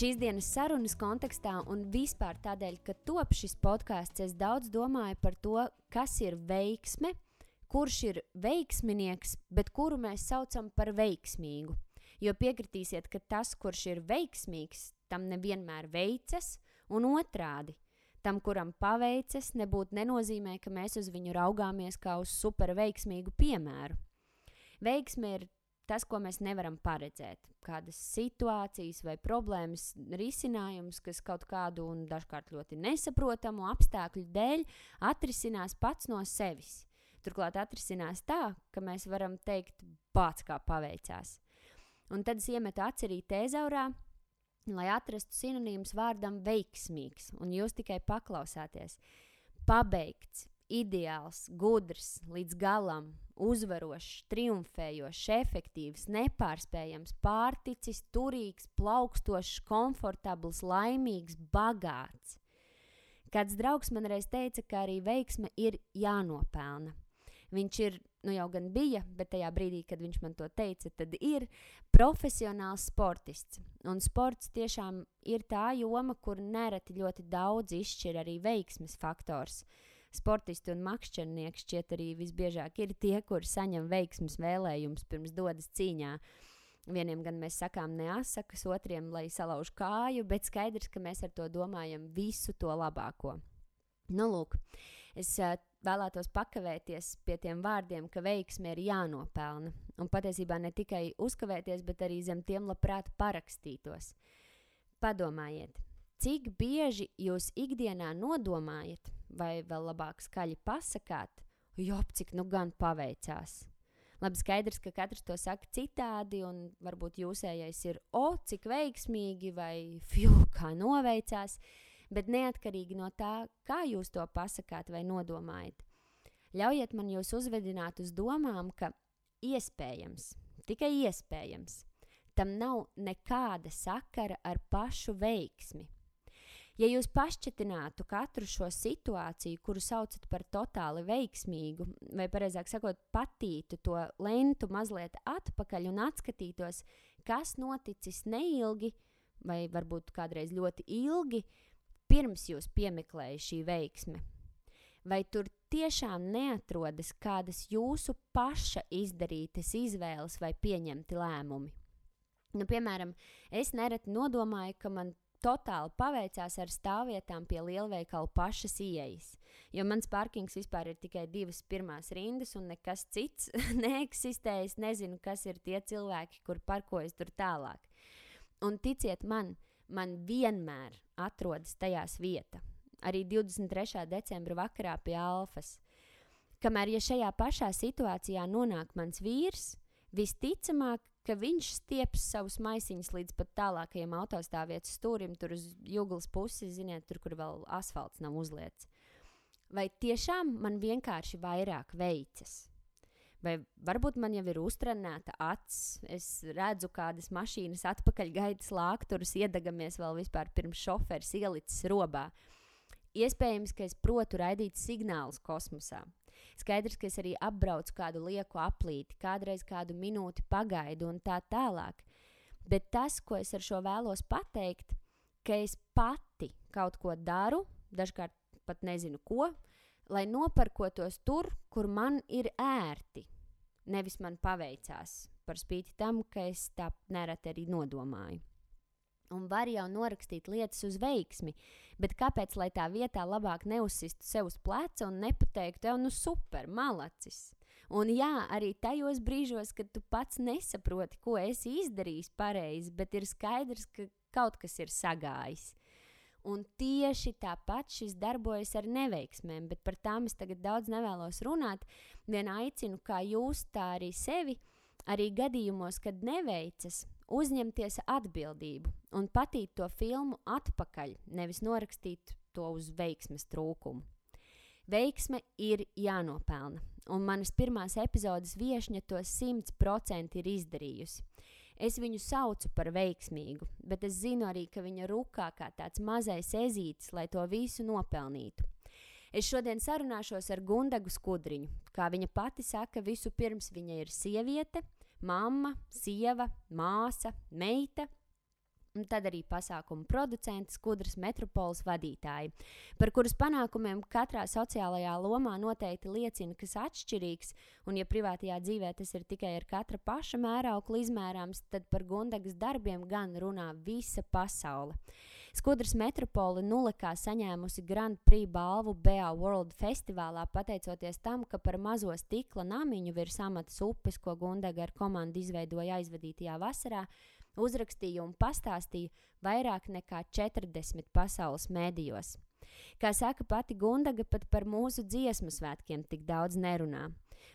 Šīs dienas sarunas kontekstā un vispār tādēļ, ka top šis podcasts, es daudz domāju par to, kas ir veiksme, kurš ir veiksminieks, bet kuru mēs saucam par veiksmīgu. Jo piekritīsiet, ka tas, kurš ir veiksmīgs, tam nevienmēr veicas, un otrādi. Tam, kuram paveicas, nebūtu nenozīmē, ka mēs uz viņu raugāmies kā uz super veiksmīgu piemēru. Veiksme ir tas, ko mēs nevaram paredzēt. Kādas situācijas vai problēmas risinājums, kas kaut kādu un dažkārt ļoti nesaprotamu apstākļu dēļ atrisinās pats no sevis. Turklāt atrisinās tā, ka mēs varam teikt, pats kā paveicās. Un tad es iemetu aci arī tezaurā, lai atrastu sinonīmus vārdam veiksmīgs, un jūs tikai paklausāties. Pabeigts, ideāls, gudrs, līdz galam, uzvarošs, triumfējošs, efektīvs, nepārspējams, pārticis, turīgs, plaukstošs, komfortabls, laimīgs, bagāts. Kāds draugs man reiz teica, ka arī veiksme ir jānopelna. Viņš ir, jau gan bija, bet tajā brīdī, kad viņš man to teica, tad ir profesionāls sportists. Un sports tiešām ir tā joma, kur nereti ļoti daudz izšķir arī veiksmes faktors. Sportisti un makšķernieki šķiet arī visbiežāk ir tie, kuri saņem veiksmes vēlējumus pirms dodas cīņā. Vieniem gan mēs sakām neasakas, otriem, lai salauž kāju, bet skaidrs, ka mēs ar to domājam visu to labāko. Lūk, es vēlētos pakavēties pie tiem vārdiem, ka veiksme ir jānopelna. Un patiesībā ne tikai uzkavēties, bet arī zem tiem labprāt parakstītos. Padomājiet, cik bieži jūs ikdienā nodomājat, vai vēl labāk skaļi pasakāt, cik gan paveicās. Labi, skaidrs, ka katrs to saka citādi, un varbūt jūsējais ir, cik veiksmīgi, vai kā noveicās, bet neatkarīgi no tā, kā jūs to pasakāt vai nodomājat. Ļaujiet man jūs uzvedināt uz domām, ka iespējams, tikai iespējams, tam nav nekāda sakara ar pašu veiksmi. Ja jūs pašķetinātu katru šo situāciju, kuru saucat par totāli veiksmīgu, vai pareizāk sakot, patītu to lentu mazliet atpakaļ un atskatītos, kas noticis neilgi, vai varbūt kādreiz ļoti ilgi, pirms jūs piemeklēja šī veiksme. Vai tur tiešām neatrodas kādas jūsu paša izdarītas izvēles vai pieņemti lēmumi? Piemēram, es nereti nodomāju, ka man totāli paveicās ar stāvvietām pie lielveikalu pašas ieejas, jo mans parkings vispār ir tikai 2 pirmās rindas un nekas cits neeksistē. Es nezinu, kas ir tie cilvēki, kur parkojas tur tālāk. Un ticiet man vienmēr atrodas tajās vieta. Arī 23. decembra vakarā pie Alfas. Kamēr, ja šajā pašā situācijā nonāk mans vīrs, visticamāk, ka viņš stieps savus maisiņus līdz pat tālākajiem autostāvvietas stūrim, tur uz juglas pusi, ziniet, tur, kur vēl asfalts nav uzliets. Vai tiešām man vienkārši vairāk veicas? Vai varbūt man jau ir uztrenēta acs, es redzu kādas mašīnas atpakaļgaitas lākturus, iedegamies vēl vispār pirms šoferis ielicis robā. Iespējams, ka es protu raidīt signālus kosmosā. Skaidrs, ka es arī apbraucu kādu lieku aplīti, kādreiz kādu minūti pagaidu un tā tālāk. Bet tas, ko es ar šo vēlos pateikt, ka es pati kaut ko daru, dažkārt pat nezinu ko, lai noparkotos tur, kur man ir ērti. Nevis man paveicās, par spīti tam, ka es tā nereti arī nodomāju. Un var jau norakstīt lietas uz veiksmi, bet kāpēc, lai tā vietā labāk neuzsistu sev uz pleca un nepateiktu, super, malacis. Un jā, arī tajos brīžos, kad tu pats nesaproti, ko esi izdarījis pareizi, bet ir skaidrs, ka kaut kas ir sagājis. Un tieši tāpat šis darbojas ar neveiksmēm, bet par tām es tagad daudz nevēlos runāt. Vien aicinu, kā jūs, tā arī sevi, arī gadījumos, kad neveicas, uzņemties atbildību un patīt to filmu atpakaļ, nevis norakstīt to uz veiksmes trūkumu. Veiksme ir jānopelna, un manas pirmās epizodes viešņa to 100% ir izdarījusi. Es viņu saucu par veiksmīgu, bet es zinu arī, ka viņa rukā kā tāds mazais ezītis, lai to visu nopelnītu. Es šodien sarunāšos ar Gundagu Skudriņu. Kā viņa pati saka, visu pirms viņa ir sieviete, mamma, sieva, māsa, meita, un tad arī pasākumu producenti, Skudras metropoles vadītāji, par kuras panākumiem katrā sociālajā lomā noteikti liecina, kas atšķirīgs, un ja privātajā dzīvē tas ir tikai ar katra paša mērauklu izmērāms, tad par Gundagas darbiem gan runā visa pasaule. Skudras metropole Nulekā saņēmusi Grand Prix balvu BA World festivālā, pateicoties tam, ka par mazo stikla namiņu virs Amatas upes, ko Gundaga ar komandu izveidoja aizvadītajā vasarā, uzrakstīja un pastāstīja vairāk nekā 40 pasaules mēdījos. Kā saka pati Gundaga, pat par mūsu dziesmu svētkiem tik daudz nerunā.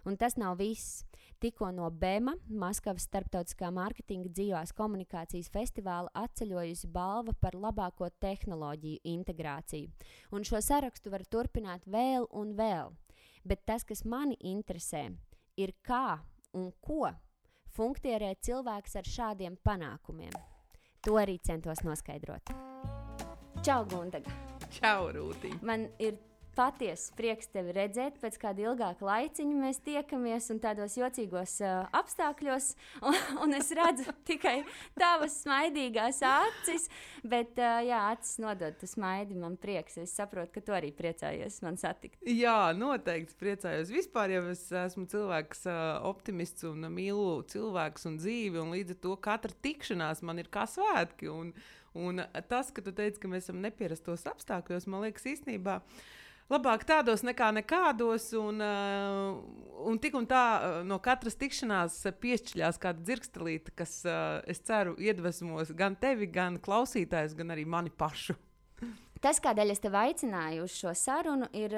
Un tas nav viss. Tikko no BEMA, Maskavas starptautiskā mārketinga dzīvās komunikācijas festivāla, atceļojusi balva par labāko tehnoloģiju integrāciju. Un šo sarakstu var turpināt vēl un vēl. Bet tas, kas mani interesē, ir kā un ko funkcionē cilvēks ar šādiem panākumiem. To arī centos noskaidrot. Čau, Gundaga! Čau, Rūti! Man ir patiesi prieks tevi redzēt, pēc kāda ilgāka laiciņa mēs tiekamies un tādos jocīgos apstākļos, un es redzu tikai tavas smaidīgās acis, bet jā, acis nodod tu smaidi, man prieks, es saprotu, ka tu arī priecājies man satikt. Jā, noteikti priecājos. Vispār jau es esmu cilvēks optimists un mīlu cilvēkus un dzīvi, un līdz ar to katra tikšanās man ir kā svētki, un tas, ka tu teici, ka mēs esam nepierastos apstākļos, man liekas īstenībā labāk tādos nekā nekādos, un tik un tā no katras tikšanās piešķiļās kāda dzirkstelīte, kas, es ceru, iedvesmos gan tevi, gan klausītājus, gan arī mani pašu. Tas, kādēļ es tevi aicināju uz šo sarunu, ir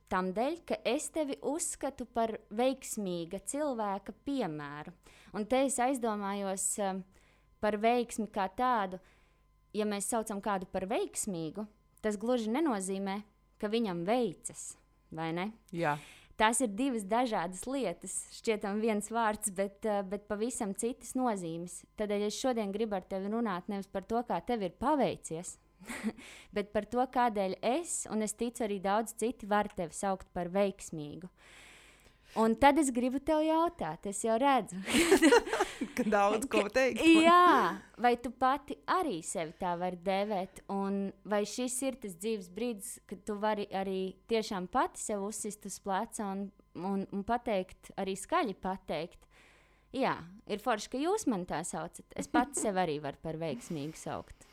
tam dēļ, ka es tevi uzskatu par veiksmīga cilvēka piemēru. Un te es aizdomājos par veiksmi kā tādu, ja mēs saucam kādu par veiksmīgu, tas gluži nenozīmē, ka viņam veicas, vai ne? Jā. Tās ir divas dažādas lietas, šķietam viens vārds, bet pavisam citas nozīmes. Tādēļ es šodien gribu ar tevi runāt nevis par to, kā tev ir paveicies, bet par to, kādēļ es, un es ticu arī daudz citi, var tevi saukt par veiksmīgu. Un tad es gribu tev jautāt, es jau redzu. Ka daudz ko teikt. Jā, vai tu pati arī sevi tā vari dēvēt, un vai šis ir tas dzīves brīdis, kad tu vari arī tiešām pati sev uzsist uz pleca un pateikt, arī skaļi pateikt. Jā, ir forši, ka jūs man tā saucat. Es pati sev arī varu par veiksmīgu saukt.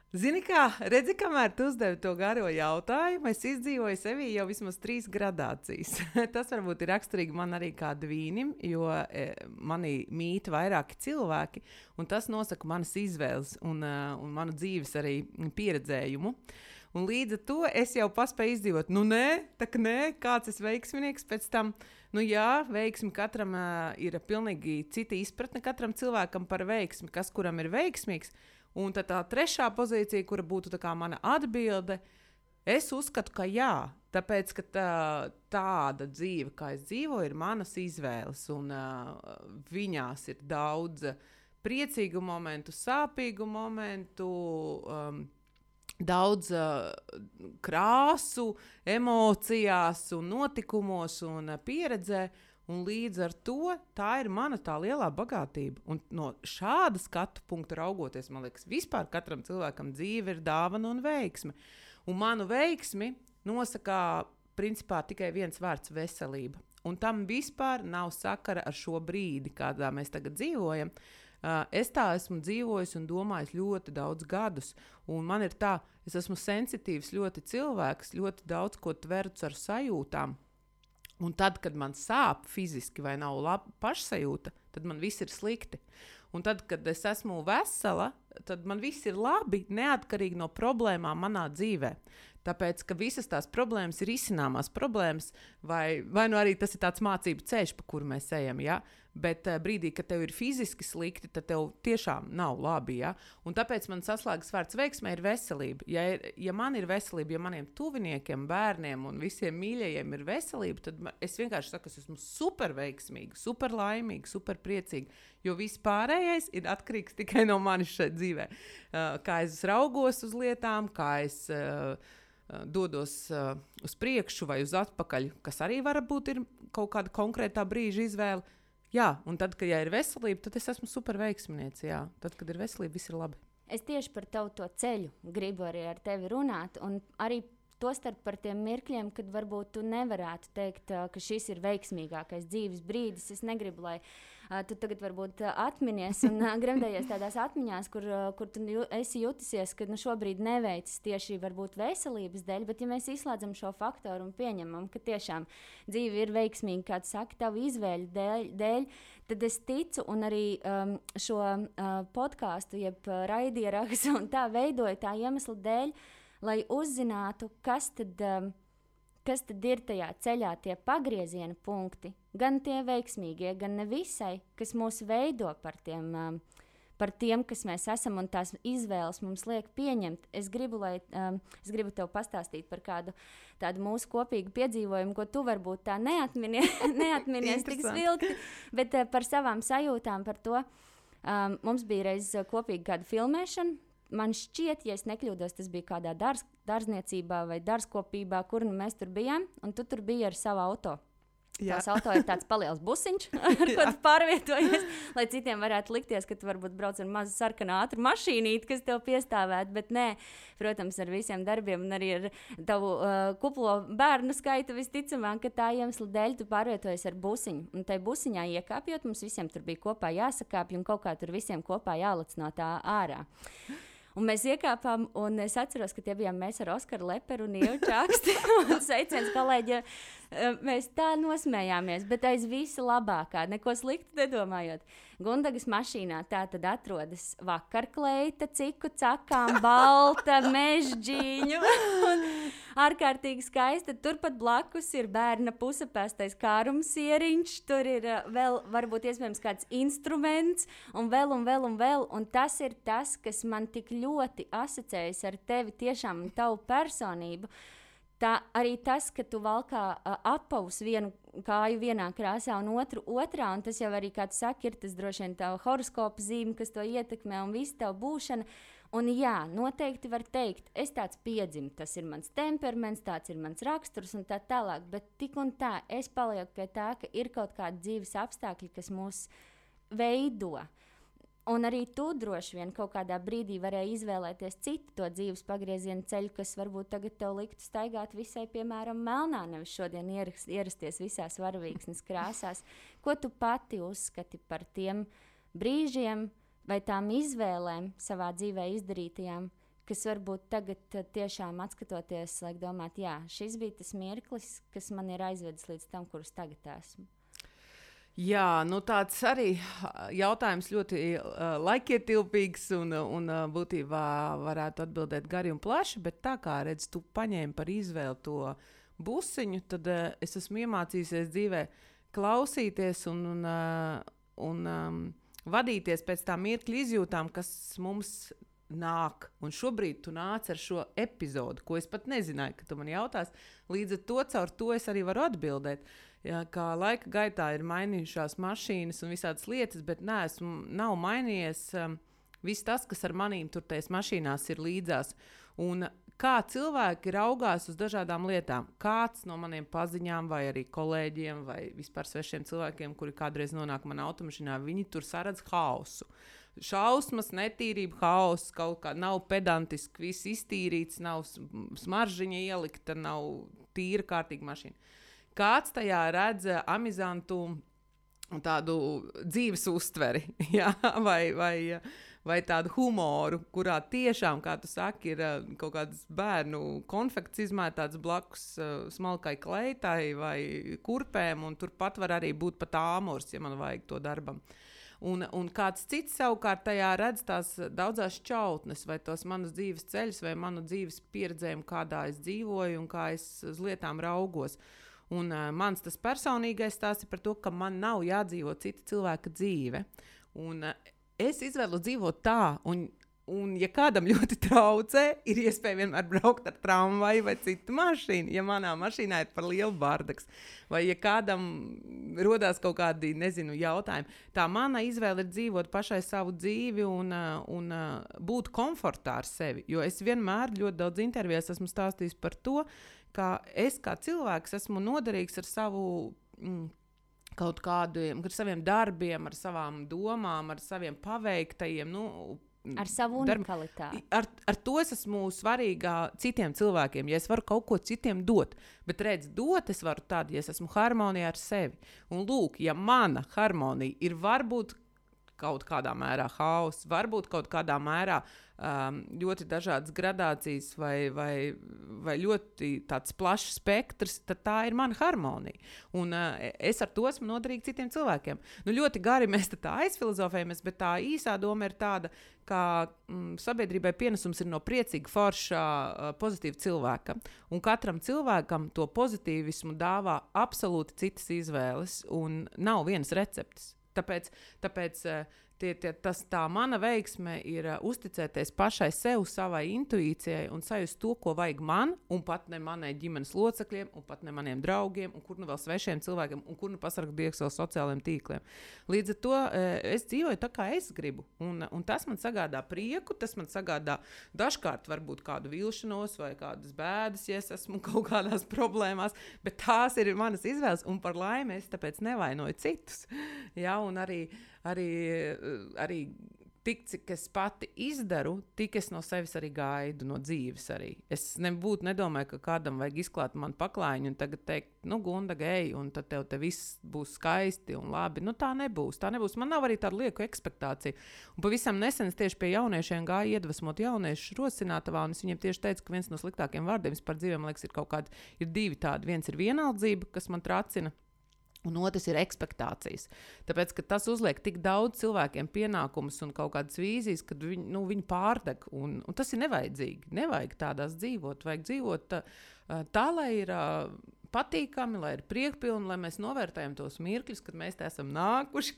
Zini kā, redzi, kamēr tu uzdevi to garo jautājumu, es izdzīvoju sevī jau vismaz 3 gradācijas. Tas varbūt ir raksturīgi man arī kā dvīnim, jo mani mīt vairāki cilvēki, un tas nosaka manas izvēles un manu dzīves arī pieredzējumu. Un līdz ar to es jau paspēju izdzīvot, nē, kāds es veiksminieks pēc tam. Nu jā, veiksmi katram ir pilnīgi cita izpratne katram cilvēkam par veiksmi, kas kuram ir veiksmīgs. Un tad tā trešā pozīcija, kura būtu tā kā mana atbilde, es uzskatu, ka jā, tāpēc, ka tāda dzīve, kā es dzīvoju, ir manas izvēles, un viņās ir daudz priecīgu momentu, sāpīgu momentu, daudz krāsu, emocijās un notikumos un pieredzē. Un līdz ar to tā ir mana tā lielā bagātība. Un no šāda skatu punkta raugoties, man liekas, vispār katram cilvēkam dzīve ir dāvana un veiksme. Un manu veiksmi nosaka principā tikai viens vārds - veselība. Un tam vispār nav sakara ar šo brīdi, kādā mēs tagad dzīvojam. Es tā esmu dzīvojis un domājis ļoti daudz gadus. Un man ir tā, es esmu sensitīvs ļoti cilvēks, ļoti daudz ko tverts ar sajūtām. Un tad, kad man sāp fiziski vai nav laba pašsajūta, tad man viss ir slikti. Un tad, kad es esmu vesela, tad man viss ir labi, neatkarīgi no problēmām manā dzīvē. Tāpēc, ka visas tās problēmas ir izcināmās problēmas, vai nu arī tas ir tāds mācību ceļš, pa kuru mēs ejam, ja? Bet brīdī, kad tev ir fiziski slikti, tad tev tiešām nav labi, ja? Un tāpēc man saslēgas vārds veiksmē ir veselība. Ja man ir veselība, ja maniem tuviniekiem, bērniem un visiem mīļajiem ir veselība, tad es vienkārši saku, es esmu super veiksmīga, super laimīga, super priecīga, jo viss pārējais ir atkarīgs tikai no manis šeit dzīvē. Kā es raugos uz lietām, kā es dodos uz priekšu vai uz atpakaļ, kas arī varbūt ir kaut kāda konkrētā brīža izvēle. Jā, un tad, kad ir veselība, tad es esmu super veiksminieks. Jā, tad, kad ir veselība, viss ir labi. Es tieši par tavu to ceļu gribu arī ar tevi runāt, un arī tostarp par tiem mirkļiem, kad varbūt tu nevarētu teikt, ka šis ir veiksmīgākais dzīves brīdis. Es negribu, lai tu tagad varbūt atminies un gremdējies tādās atmiņās, kur tu esi jutusies, ka šobrīd neveicis tieši varbūt veselības dēļ, bet ja mēs izslēdzam šo faktoru un pieņemam, ka tiešām dzīve ir veiksmīga, kā tu saki, tavu izvēļu dēļ, tad es ticu un arī šo podkāstu, jeb raidierakstu un tā veidoju tā iemesla dēļ, lai uzzinātu, kas tad ir tajā ceļā tie pagrieziena punkti, gan tie veiksmīgie, gan nevisai, kas mūs veido par tiem, kas mēs esam un tās izvēles mums liek pieņemt. Es gribu tev pastāstīt par kādu tādu mūsu kopīgu piedzīvojumu, ko tu varbūt tā neatminies tik svilti, bet par savām sajūtām par to. Mums bija reiz kopīgi kāda filmēšana. Man šķiet, ja es nekļūdos, tas bija kādā dārzniecībā vai dārzkopībā, kur mēs tur bijām, un tu tur biji ar savu auto. Tās auto ir tāds paliels busiņš, ar ko tu pārvietojies, lai citiem varētu likties, ka tu varbūt brauc ar mazu sarkanu ātru mašīnīti, kas tev piestāvētu, bet nē, protams, ar visiem darbiem un arī ar tavu kuplo bērnu skaitu visticamāk, ka tā iemesla dēļ tu pārvietojies ar busiņu. Un tai busiņā iekāpjot, mums visiem tur bija kopā jāsakāpj un kaut kā tur visiem kopā jālec no tā ārā. Un mēs iekāpām, un es atceros, ka tie bijām mēs ar Oskaru Leperu un Ievu Čaksti. Un sveiciens kolēģi, mēs tā nosmējāmies, bet aiz visa labākā, neko sliktu nedomājot. Gundagas mašīnā tā tad atrodas vakarkleita, ciku cakām, balta, mežģīņu. Ārkārtīgi skaista. Turpat blakus ir bērna pusapēstais kārumsieriņš, tur ir vēl varbūt iespējams kāds instruments un vēl. Un tas ir tas, kas man tik ļoti asociējas ar tevi tiešām un tavu personību. Tā arī tas, ka tu valkā apavus vienu kāju vienā krāsā un otru otrā, un tas jau arī, kā tu saki, ir tas droši vien tava horoskopa zīme, kas to ietekmē un visu tavu būšanu. Un jā, noteikti var teikt, es tāds piedzimu, tas ir mans temperaments, tāds ir mans raksturs un tā tālāk, bet tik un tā es palieku pie tā, ka ir kaut kādi dzīves apstākļi, kas mūs veido. Un arī tu droši vien kaut kādā brīdī varēji izvēlēties citu to dzīves pagrieziena ceļu, kas varbūt tagad tev liktu staigāt visai, piemēram, melnā, nevis šodien ierasties visās varavīksnes krāsās. Ko tu pati uzskati par tiem brīžiem vai tām izvēlēm savā dzīvē izdarītajām, kas varbūt tagad tiešām atskatoties, liek domāt, jā, šis bija tas mirklis, kas man ir aizvedis līdz tam, kurus tagad esmu? Jā, tāds arī jautājums ļoti laikietilpīgs un būtībā varētu atbildēt gari un plaši, bet tā kā redz, tu paņēmi par izvēli to busiņu, tad es esmu iemācījusies dzīvē klausīties un vadīties pēc tā mirkļa izjūtām, kas mums nāk. Un šobrīd tu nāc ar šo epizodu, ko es pat nezināju, ka tu man jautās. Līdz ar to caur to es arī varu atbildēt. Jā, kā laika gaitā ir mainījušās mašīnas un visādas lietas, bet nav mainījies viss tas, kas ar manīm tur tajās mašīnās ir līdzās. Un kā cilvēki raugās uz dažādām lietām. Kāds no maniem paziņām vai arī kolēģiem vai vispār svešiem cilvēkiem, kuri kādreiz nonāk manā automašīnā, viņi tur saredz hausu. Šausmas, netīrība, hauss, kaut kā nav pedantiski, viss iztīrīts, nav smaržiņa ielikta, nav tīra kārtīga mašīna. Kāds tajā redz amizantu tādu dzīves uztveri, ja? vai tādu humoru, kurā tiešām, kā tu saki, ir kaut kāds bērnu konfekts izmētāts blakus smalkai kleitai vai kurpēm, un turpat var arī būt pat āmurs, ja man vajag to darbam. Un kāds cits savukārt tajā redz tās daudzās šķautnes, vai tos manas dzīves ceļus, vai manu dzīves pieredzējumu, kādā es dzīvoju un kā es uz lietām raugos. Un mans tas personīgais stāsts ir par to, ka man nav jādzīvo cita cilvēka dzīve. Un es izvēlu dzīvot tā, un ja kādam ļoti traucē, ir iespēja vienmēr braukt ar tramvaju vai citu mašīnu, ja manā mašīnā ir par lielu bardaks. Vai ja kādam rodās kaut kādi, jautājumi. Tā mana izvēle ir dzīvot pašai savu dzīvi un būt komfortā ar sevi. Jo es vienmēr ļoti daudz intervijās esmu stāstījis par to, ka es kā cilvēks esmu noderīgs ar savu kaut kādiem, ar saviem darbiem, ar savām domām, ar saviem paveiktajiem, ar savu unikalitāti. Ar to es esmu svarīgā citiem cilvēkiem, ja es varu kaut ko citiem dot. Bet dot es varu tad, ja es esmu harmonijā ar sevi. Un lūk, ja mana harmonija ir varbūt kaut kādā mērā hauss, varbūt kaut kādā mērā ļoti dažādas gradācijas vai ļoti tāds plašs spektrs, tad tā ir mana harmonija. Un es ar to esmu noderīga citiem cilvēkiem. Ļoti gari mēs tā aizfilozofējamies, bet tā īsā doma ir tāda, ka sabiedrībai pienesums ir no priecīga, forša, pozitīva cilvēka. Un katram cilvēkam to pozitīvismu dāvā absolūti citas izvēles un nav vienas receptes. Tāpēc tā mana veiksme ir uzticēties pašai sev, savai intuīcijai un sajust to, ko vajag man, un pat ne manai ģimenes locekļiem, un pat ne maniem draugiem, un kur nu vēl svešiem cilvēkiem, un kur nu pasargt dievs vēl sociālajiem tīkliem. Līdz ar to es dzīvoju tā, kā es gribu, un tas man sagādā prieku, tas man sagādā dažkārt varbūt kādu vilšanos vai kādas bēdas, ja es esmu kaut kādās problēmās, bet tās ir manas izvēles, un par laimi es tāpēc nevainoju citus. Ja, un arī tik, cik es pati izdaru, tik es no sevis arī gaidu, no dzīves arī. Es nedomāju, ka kādam vajag izklāt man paklājiņu un tagad teikt, Gunda, ej, un tad tev viss būs skaisti un labi. Tā nebūs. Man nav arī tāda lieku ekspektācija. Un pavisam nesen es tieši pie jauniešiem gāju iedvesmot jauniešus Rosinātavā, un es viņiem tieši teicu, ka viens no sliktākiem vārdiem par dzīvēm, liekas, ir divi tādi. Viens ir vienaldzība, kas man tracina, un otrs ir ekspektācijas. Tāpēc, ka tas uzliek tik daudz cilvēkiem pienākumus un kaut kādas vīzijas, kad viņi pārdeg. Un tas ir nevajadzīgi. Nevajag tādās dzīvot. Vajag dzīvot tā, lai ir patīkami, lai ir priekpilni, lai mēs novērtējam tos mirkļus, kad mēs te esam nākuši,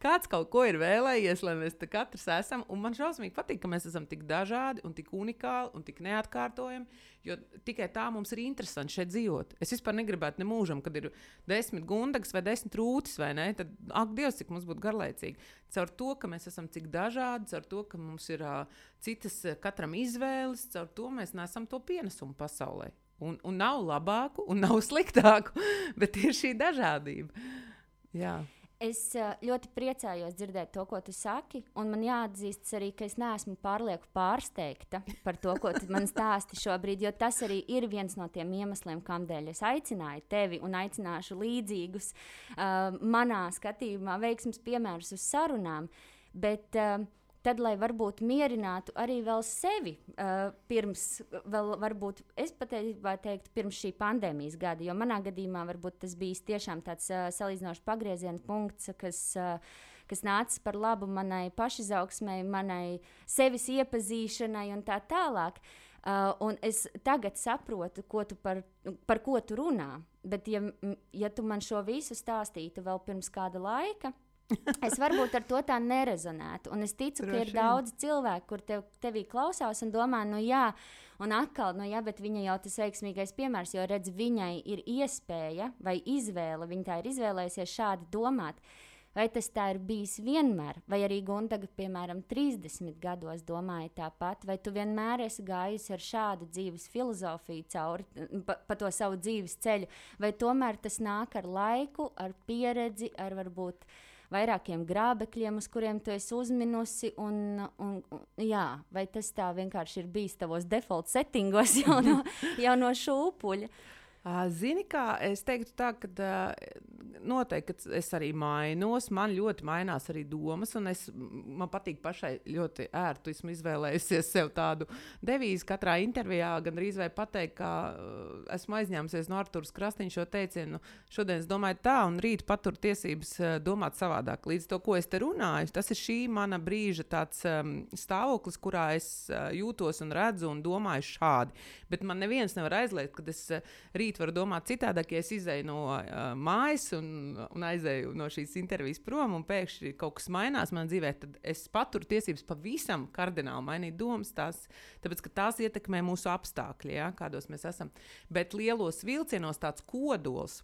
kāds kaut ko ir vēlējies, lai mēs te katrs esam. Un man šausmīgi patīk, ka mēs esam tik dažādi un tik unikāli un tik neatkārtojami, jo tikai tā mums ir interesanti šeit dzīvot. Es vispār negribētu ne mūžam, kad ir 10 gundagas vai 10 rūtis, vai ne? Tad, ak, Dievs, cik mums būtu garlaicīgi. Caur to, ka mēs esam cik dažādi, caur to, ka mums ir citas katram izvēles, caur to mēs nesam to pienesumu pasaulē. Un nav labāku, un nav sliktāku, bet ir šī dažādība. Jā. Es ļoti priecājos dzirdēt to, ko tu saki, un man jāatzīst arī, ka es neesmu pārlieku pārsteigta par to, ko tu man stāsti šobrīd, jo tas arī ir viens no tiem iemesliem, kādēļ es aicināju tevi un aicināšu līdzīgus manā skatījumā veiksmes piemērus uz sarunām, bet tad, lai varbūt mierinātu arī vēl sevi varbūt es patiesībā teiktu pirms šī pandēmijas gada, jo manā gadījumā varbūt tas bijis tiešām tāds salīdzinoši pagrieziena punkts, kas nāca par labu manai pašizaugsmei, manai sevis iepazīšanai un tā tālāk. Un es tagad saprotu, par ko tu runā, bet ja tu man šo visu stāstītu vēl pirms kāda laika, es varbūt ar to tā nerezonētu. Un es ticu, ka ir daudz cilvēku, kur tevī klausās un domā, un atkal, bet viņa jau tas veiksmīgais piemērs, jo redz, viņai ir iespēja vai izvēle, viņa tā ir izvēlējusies šādi domāt. Vai tas tā ir bijis vienmēr, vai arī Gundaga, piemēram, 30 gados domāja tāpat, vai tu vienmēr esi gājusi ar šādu dzīves filozofiju cauri, pa to savu dzīves ceļu, vai tomēr tas nāk ar laiku, ar pieredzi, ar varbūt vairākiem grābekļiem, uz kuriem tu esi uzminusi, vai tas tā vienkārši ir bijis tavos default settingos jau no šūpuļa? Zini kā, es teiktu tā, ka noteikti es arī mainos, man ļoti mainās arī domas, un man patīk pašai ļoti ērtu, esmu izvēlējusies sev tādu devīzi katrā intervijā, gandrīz vai pateikt, ka esmu aizņēmusies no Artūras Krastīņa šo teicienu, šodien es domāju tā, un rīt patur tiesības domāt savādāk. Līdz to, ko es te runāju, tas ir šī mana brīža tāds stāvoklis, kurā es jūtos un redzu un domāju šādi. Bet man neviens nevar aizliegt, kad es rīt varu domāt citādāk, ja es izēju no mājas un aizēju no šīs intervijas prom, un pēkšņi kaut kas mainās manā dzīvē, tad es paturu tiesības pavisam kardināli mainīt domas, tāpēc, ka tās ietekmē mūsu apstākļi, ja, kādos mēs esam. Bet lielos vilcienos tāds kodols,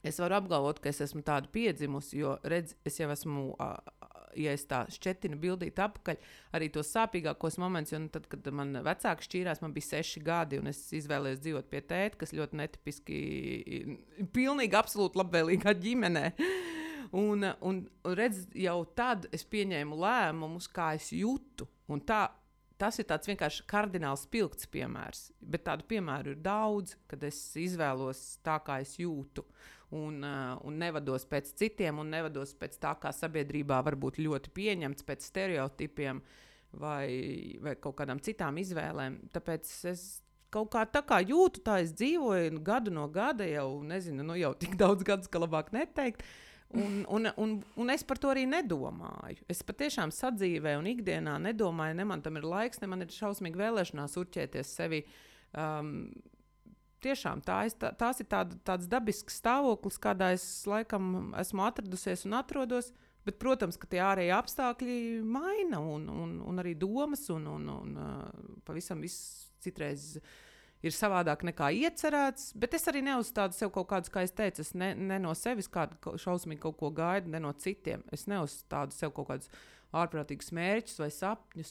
es varu apgalvot, ka es esmu tādu piedzimusi, jo redz, es jau esmu ja es tā šķetinu bildīt apakaļ, arī tos sāpīgākos momentus, jo tad, kad man vecāki šķīrās, man bija 6 gadi, un es izvēlējos dzīvot pie tēta, kas ļoti netipiski, pilnīgi absolūti labvēlīgā ģimenē. Un redz, jau tad es pieņēmu lēmumus, kā es jūtu, un tas ir tāds vienkārši kardināls spilgts piemērs, bet tādu piemēru ir daudz, kad es izvēlos tā, kā es jūtu, un nevados pēc citiem, un nevados pēc tā, kā sabiedrībā var būt ļoti pieņemts, pēc stereotipiem vai kaut kādām citām izvēlēm. Tāpēc es kaut kā tā kā jūtu, tā es dzīvoju gadu no gada, jau nezinu, jau tik daudz gadus, ka labāk neteikt. Un es par to arī nedomāju. Es patiešām sadzīvē un ikdienā nedomāju, ne man tam ir laiks, ne man ir šausmīgi vēlēšanās urķēties sevi. Tiešām tās ir tāds dabisks stāvoklis, kādā es laikam esmu atradusies un atrodos, bet, protams, ka tie ārēji apstākļi maina un arī domas un pavisam viss citreiz ir savādāk nekā iecerēts, bet es arī neuzstādu sev kaut kādus, kā es teicu, es ne no sevis kādu šausmīgi kaut ko gaidu, ne no citiem. Es neuzstādu sev kaut kādus ārprātīgus mērķus vai sapņus,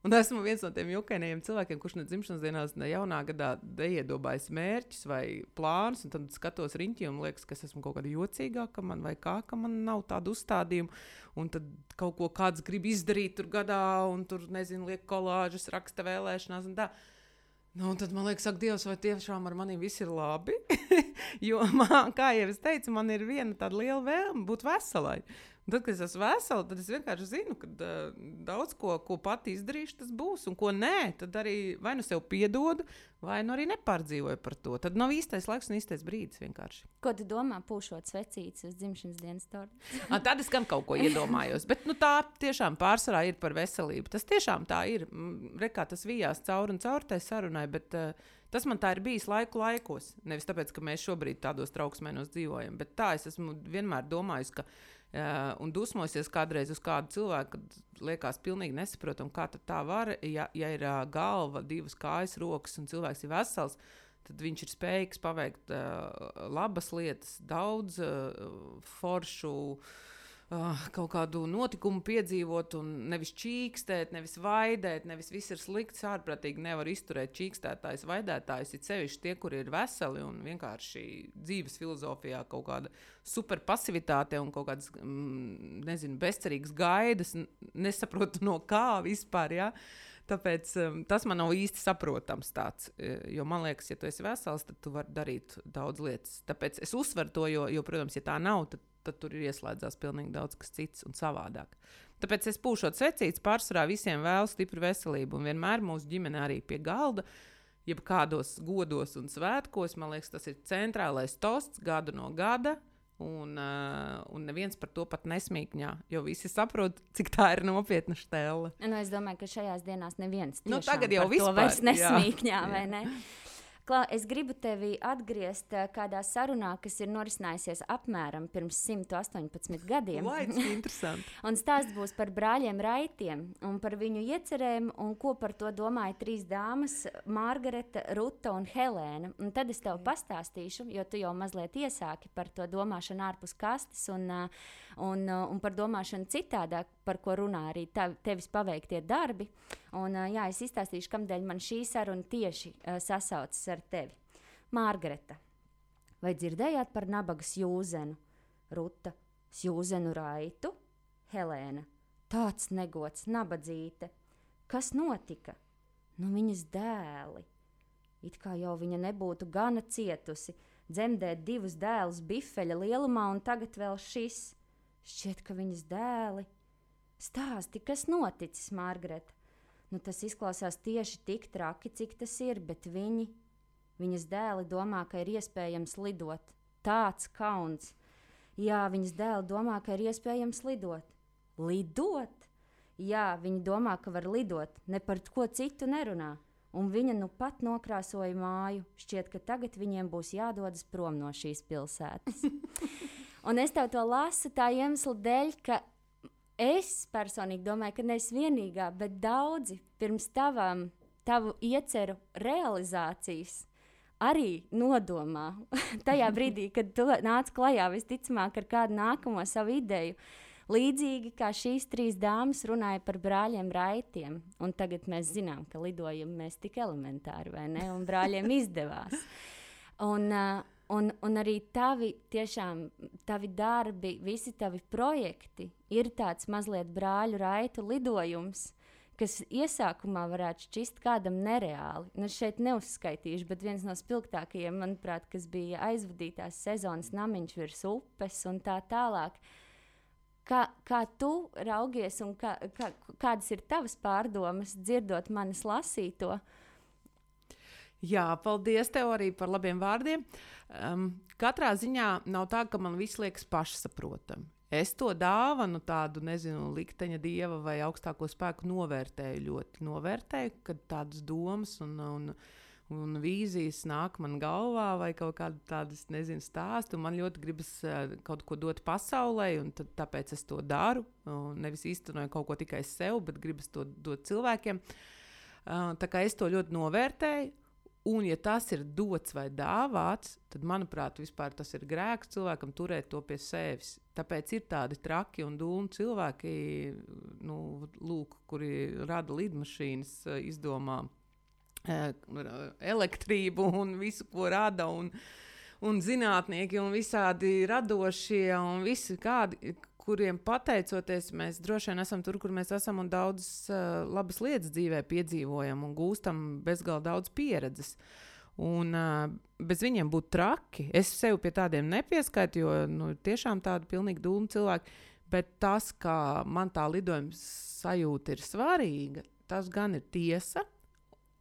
un esmu viens no tiem jukainajiem cilvēkiem, kurš ne dzimšanas dienās, ne jaunā gadā neiedomājas mērķus vai plānus, un tad skatos riņķi un liekas, ka es esmu kaut kāda jocīgāka man vai kā, ka man nav tādu uzstādījumu, un tad kaut ko kāds grib izdarīt tur gadā, un tur, nezinu, liek kolāžas, raksta vēlēšanās un tā. Un tad man liekas, ak, Dievs, vai tiešām ar maniem viss ir labi? Jo, kā jau es teicu, man ir viena tāda liela vēlme būt veselai. Un tad, kad es esmu vesela, tad es vienkārši zinu, ka daudz ko pati izdarīšu, tas būs. Un ko nē, tad arī vai nu sev piedodu, vai nu arī nepārdzīvoju par to. Tad nav īstais laiks un īstais brīdis vienkārši. Ko tu domā, pūšot svecītes uz dzimšanas dienas torti? Tad es gan kaut ko iedomājos. Bet tā tiešām pārsvarā ir par veselību. Tas tiešām tā ir. Rekā tas vijās cauri un cauri tai sarunai, bet tas man tā ir bijis laikos. Nevis tāpēc, ka mēs šobrīd tādos trauksmēnos dzīvojam, bet tā es esmu vienmēr domājis, ka un dusmosies kādreiz uz kādu cilvēku, kad liekas pilnīgi nesaprotam, kā tā var, ja ir galva, 2 kājas, rokas un cilvēks ir vesels, tad viņš ir spējīgs paveikt labas lietas, daudz foršu, kaut kādu notikumu piedzīvot un nevis čīkstēt, nevis vaidēt, nevis viss ir slikts, ārprātīgi nevar izturēt čīkstētājs, vaidētājs, ir sevišķi tie, kuri ir veseli un vienkārši dzīves filozofijā kaut kāda super pasivitāte un kaut kādas, nezinu, bezcerīgas gaidas, nesaprotu no kā vispār, jā. Tāpēc tas man nav īsti saprotams tāds, jo man liekas, ja tu esi vesels, tad tu vari darīt daudz lietas. Tāpēc es uzsveru to, jo protams, ja tā nav, tad tur ir ieslēdzās pilnīgi daudz kas cits un savādāk. Tāpēc es pūšot svecītes, pārsvarā visiem vēlu stipru veselību un vienmēr mūsu ģimene arī pie galda, jeb kādos godos un svētkos, man liekas, tas ir centrālais tosts gadu no gada, un neviens par to pat nesmīkņā, jo visi saprot, cik tā ir nopietna štelle. Es domāju, ka šajās dienās neviens tiešām tagad jau par to vairs nesmīkņā, vai ne? Klā, es gribu tevi atgriezt kādā sarunā, kas ir norisinājusies apmēram pirms 118 gadiem. Vai, tas ir interesanti. Un stāsts būs par brāļiem Raitiem un par viņu iecerēm un ko par to domāja 3 dāmas – Margareta, Ruta un Helēna. Un tad es tev pastāstīšu, jo tu jau mazliet iesāki par to domāšanu ārpus kastes un par domāšanu citādāk, par ko runā arī tevis paveiktie darbi. Un, jā, es izstāstīšu, kamdēļ man šī saruna tieši sasaucas ar tevi. Margareta, vai dzirdējāt par nabagas jūzenu? Ruta, jūzenu Raitu? Helēna, tāds negods, nabadzīte. Kas notika? Nu, viņas dēli. It kā jau viņa nebūtu gana cietusi, dzemdēt 2 dēlus bifeļa lielumā un tagad vēl šis. Šķiet, ka viņas dēli. Stāsti, kas noticis, Margareta? Nu, tas izklausās tieši tik traki, cik tas ir, bet viņas dēli domā, ka ir iespējams lidot. Tāds kauns. Jā, viņas dēli domā, ka ir iespējams lidot. Lidot? Jā, viņi domā, ka var lidot, ne par ko citu nerunā. Un viņa nu pat nokrāsoja māju. Šķiet, ka tagad viņiem būs jādodas prom no šīs pilsētas. Un es tev to lasu tā iemesla dēļ, ka es personīgi domāju, ka neesi vienīgā, bet daudzi pirms tavu ieceru realizācijas arī nodomā. Tajā brīdī, kad tu nāc klajā visticamāk ar kādu nākamo savu ideju, Līdzīgi kā šīs 3 dāmas runāja par brāļiem Raitiem, un tagad mēs zinām, ka lidojam mēs tik elementāri, vai ne? Un brāļiem izdevās. Un arī tavi darbi, visi tavi projekti ir tāds mazliet brāļu Raitu lidojums, kas iesākumā varētu šķist kādam nereāli. Nu, šeit neuzskaitīšu, bet viens no spilgtākajiem, manuprāt, kas bija aizvadītās sezonas Namiņš virs upes un tā tālāk. Kā tu raugies un kādas ir tavas pārdomas, dzirdot manis lasīto? Jā, paldies tev arī par labiem vārdiem. Katrā ziņā nav tā, ka man viss liekas pašsaprotami. Es to dāvanu tādu, nezinu, likteņa dieva vai augstāko spēku novērtēju, kad tādas domas un vīzijas nāk man galvā vai kaut kādu tādas, nezinu, stāstu. Man ļoti gribas kaut ko dot pasaulē, un tāpēc es to daru. Nevis īstenoju kaut ko tikai sev, bet gribas to dot cilvēkiem. Tā kā es to ļoti novērtēju. Un, ja tas ir dots vai dāvāts, tad, manuprāt, vispār tas ir grēks cilvēkam turēt to pie sevis. Tāpēc ir tādi traki un dūmi cilvēki, kuri rada lidmašīnas, izdomā elektrību un visu, ko rada, un zinātnieki un visādi radošie un visi kādi, kuriem pateicoties mēs droši vien esam tur, kur mēs esam un daudzas labas lietas dzīvē piedzīvojam un gūstam bezgalīgi daudz pieredzes. Un bez viņiem būtu traki. Es sev pie tādiem nepieskaitu, jo tiešām tādi pilnīgi dūmi cilvēki, bet tas, kā man tā lidojuma sajūta ir svarīga, tas gan ir tiesa,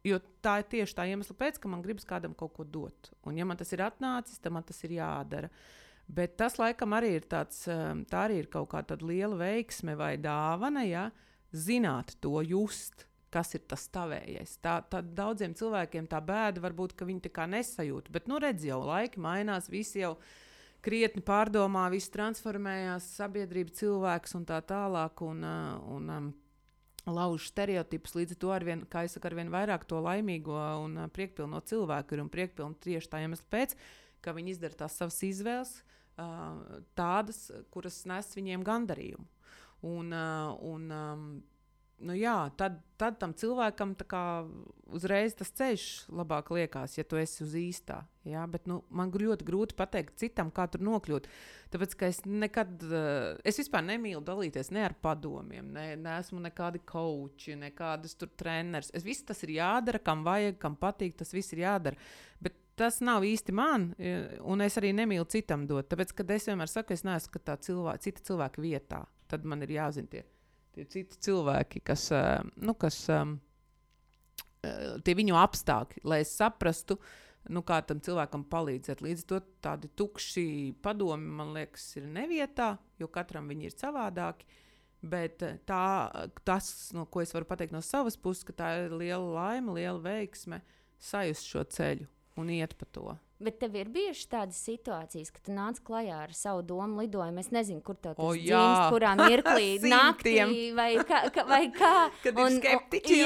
jo tā ir tieši tā iemesla pēc, ka man gribas kādam kaut ko dot. Un ja man tas ir atnācis, tad man tas ir jādara. Bet tas, laikam, arī ir tāds, tā arī ir kaut kā tāda liela veiksme vai dāvana, ja, zināt to, just, kas ir tas tavējais. Tā daudziem cilvēkiem tā bēda varbūt, ka viņi tā kā nesajūt, bet, redz jau, laiki mainās, visi jau krietni pārdomā, viss transformējās, sabiedrība, cilvēks un tā tālāk, un lauž stereotipus, līdz ar to arvien, kā es saku, arvien vairāk to laimīgo un priekpilno cilvēku ir un priekpilnu tieši tā iemesla pēc, ka viņi izdara tās savas izvēles, tādas, kuras nes viņiem gandarījumu. Tad tam cilvēkam tā kā uzreiz tas ceļš labāk liekas, ja tu esi uz īstā. Ja? Bet man ļoti grūti pateikt citam, kā tur nokļūt. Tāpēc, ka es vispār nemīlu dalīties ne ar padomiem, neesmu nekādi coachi, nekādas tur treneris. Viss tas ir jādara, kam vajag, kam patīk, tas viss ir jādara. Bet tas nav īsti man, un es arī nemīlu citam dot. Tāpēc, kad es vienmēr saku, es neesmu cita cilvēka vietā, tad man ir jāzina tie citi cilvēki, kas tie viņu apstākļi, lai es saprastu, kā tam cilvēkam palīdzēt. Līdz to tādi tukši padomi, man liekas, ir nevietā, jo katram viņi ir savādāki. Bet tas, ko es varu pateikt no savas puses, ka tā ir liela laime, liela veiksme sajust šo ceļu un iet pa to. Bet tev ir bijušas tādas situācijas, ka tu nāc klajā ar savu domu lidojumu. Es nezinu, kur tev tas dzimst, kurā mirklī naktī vai kā. Kad ir skeptiķi.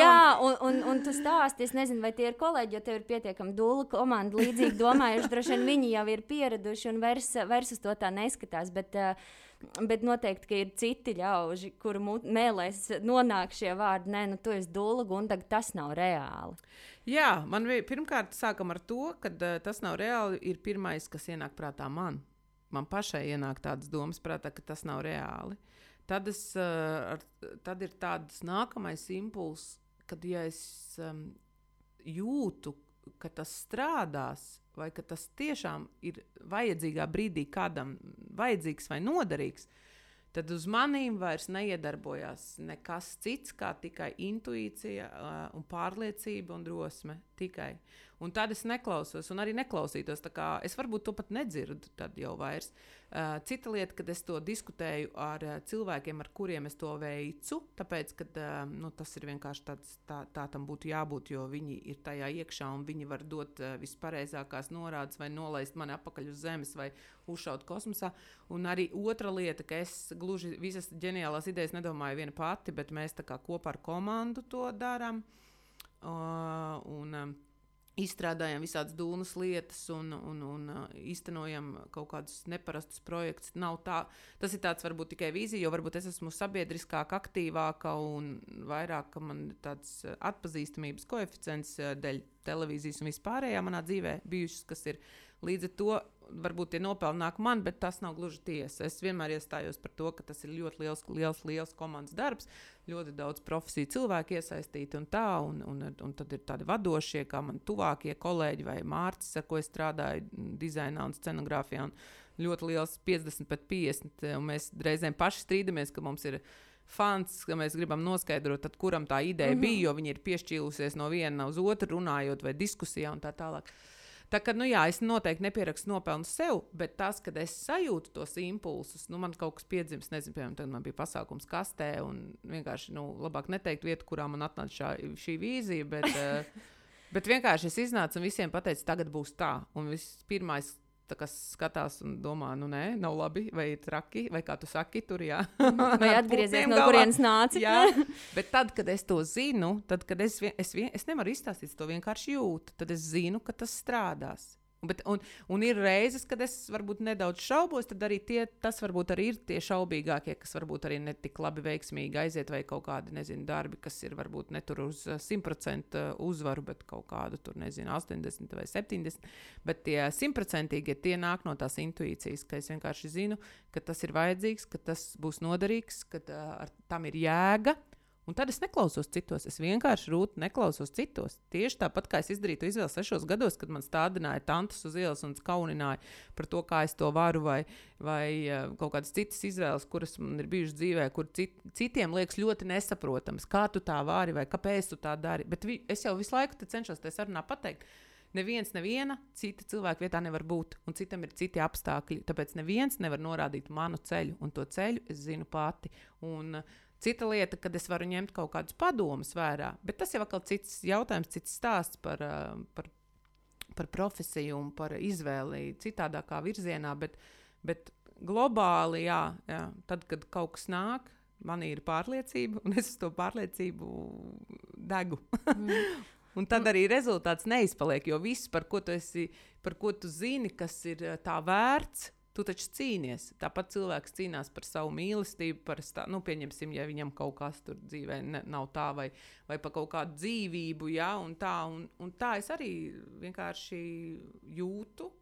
Un tu stāsti, es nezinu, vai tie ir kolēģi, jo tev ir pietiekami dūla komanda līdzīgi domājuši. Droši vien viņi jau ir pieraduši un vairs uz to tā neskatās. Bet noteikti, ka ir citi ļauži, kuru mēlēs nonāk šie vārdi. Nē, tu esi dūla, Gundaga, tas nav reāli. Jā, man pirmkārt sākam ar to, ka tas nav reāli, ir pirmais, kas ienāk prātā man. Man pašai ienāk tādas domas prātā, ka tas nav reāli. Tad ir tāds nākamais impulss, kad ja es jūtu, ka tas strādās, vai ka tas tiešām ir vajadzīgā brīdī kādam vajadzīgs vai noderīgs, tad uz manīm vairs neiedarbojās nekas cits, kā tikai intuīcija un pārliecība un drosme. Tikai. Un tad es neklausos un arī neklausītos. Tā kā es varbūt to pat nedzirdu tad jau vairs. Cita lieta, kad es to diskutēju ar cilvēkiem, ar kuriem es to veicu, tāpēc, ka tas ir vienkārši tā tam būtu jābūt, jo viņi ir tajā iekšā un viņi var dot vispareizākās norādes vai nolaist mani apakaļ uz zemes vai uzšaut kosmosā. Un arī otra lieta, ka es gluži visas ģeniālās idejas nedomāju viena pati, bet mēs tā kā kopā ar komandu to darām. izstrādājam visādas dūnas lietas un īstenojam kaut kādus neparastus projektus. Tas ir tāds varbūt tikai vīzija, jo varbūt es esmu sabiedriskāk, aktīvāka un vairāk, ka man tāds atpazīstamības koeficients dēļ televīzijas un vispārējā manā dzīvē bijušas, kas ir līdz ar to varbūt tie nopelni nāk man, bet tas nav gluži tiesa. Es vienmēr iestājos par to, ka tas ir ļoti liels komandas darbs, ļoti daudz profesiju cilvēku iesaistīti un tā, un tad ir tādi vadošie, kā man tuvākie kolēģi vai Mārcis, ar ko es strādāju dizainā un scenogrāfijā, un ļoti liels 50 pret 50, un mēs reizēm paši strīdamies, ka mums ir fans, ka mēs gribam noskaidrot, tad kuram tā ideja bija, jo viņi ir piešķīlusies no viena uz otru runājot vai diskusijā un tā tālāk. Tā kā, es noteikti nepierakstu nopelnu sev, bet tas, kad es sajūtu tos impulsus, man kaut kas piedzims, nezinu, piemēram, tad man bija pasākums kastē, un vienkārši, labāk neteikt vietu, kurā man atnāca šī vīzija, bet vienkārši es iznācu un visiem pateicu, tagad būs tā, un vispirmais, kas skatās un domā, nē, nav labi, vai ir traki, vai kā tu saki, tur jā. Vai atgriezies no kurienes nāci. Jā, bet tad, kad es to zinu, tad, kad es nevaru izstāstīt, to vienkārši jūtu, tad es zinu, ka tas strādās. Un ir reizes, kad es varbūt nedaudz šaubos, tad arī tas varbūt arī ir tie šaubīgākie, kas varbūt arī netik labi veiksmīgi aiziet, vai kaut kādi, darbi, kas ir varbūt ne tur uz 100% uzvaru, bet kaut kādu tur, 80 vai 70, bet tie 100%, tie nāk no tās intuīcijas, ka es vienkārši zinu, ka tas ir vajadzīgs, ka tas būs noderīgs, ka tam ir jēga. Un tad es neklausos citos, es vienkārši neklausos citos. Tieši tāpat, kā es izdarīju to izvēli 6 gados, kad man stādināja tantas uz ielas un kaunināja par to, kā es to varu, vai kaut kādas citas izvēles, kuras man ir bijušas dzīvē, kur citiem liekas ļoti nesaprotams, kā tu tā vari vai kāpēc tu tā dari. Bet es jau visu laiku cenšos te sarunā pateikt, neviena cita cilvēka vietā nevar būt, un citam ir citi apstākļi, tāpēc neviens nevar norādīt manu ceļu, un to ceļu es zinu pati. Un cita lieta, kad es varu ņemt kaut kādus padomus vērā, bet tas jau atkal cits jautājums, cits stāsts par profesiju un par izvēli citādākā virzienā, bet globāli, jā, tad, kad kaut kas nāk, man ir pārliecība, un es uz to pārliecību degu. Un tad arī rezultāts neizpaliek, jo viss, par ko tu zini, kas ir tā vērts, tu taču cīnies. Tāpat cilvēks cīnās par savu mīlestību, pieņemsim, ja viņam kaut kas tur dzīvē nav tā, vai par kaut kādu dzīvību, ja, un tā es arī vienkārši jūtu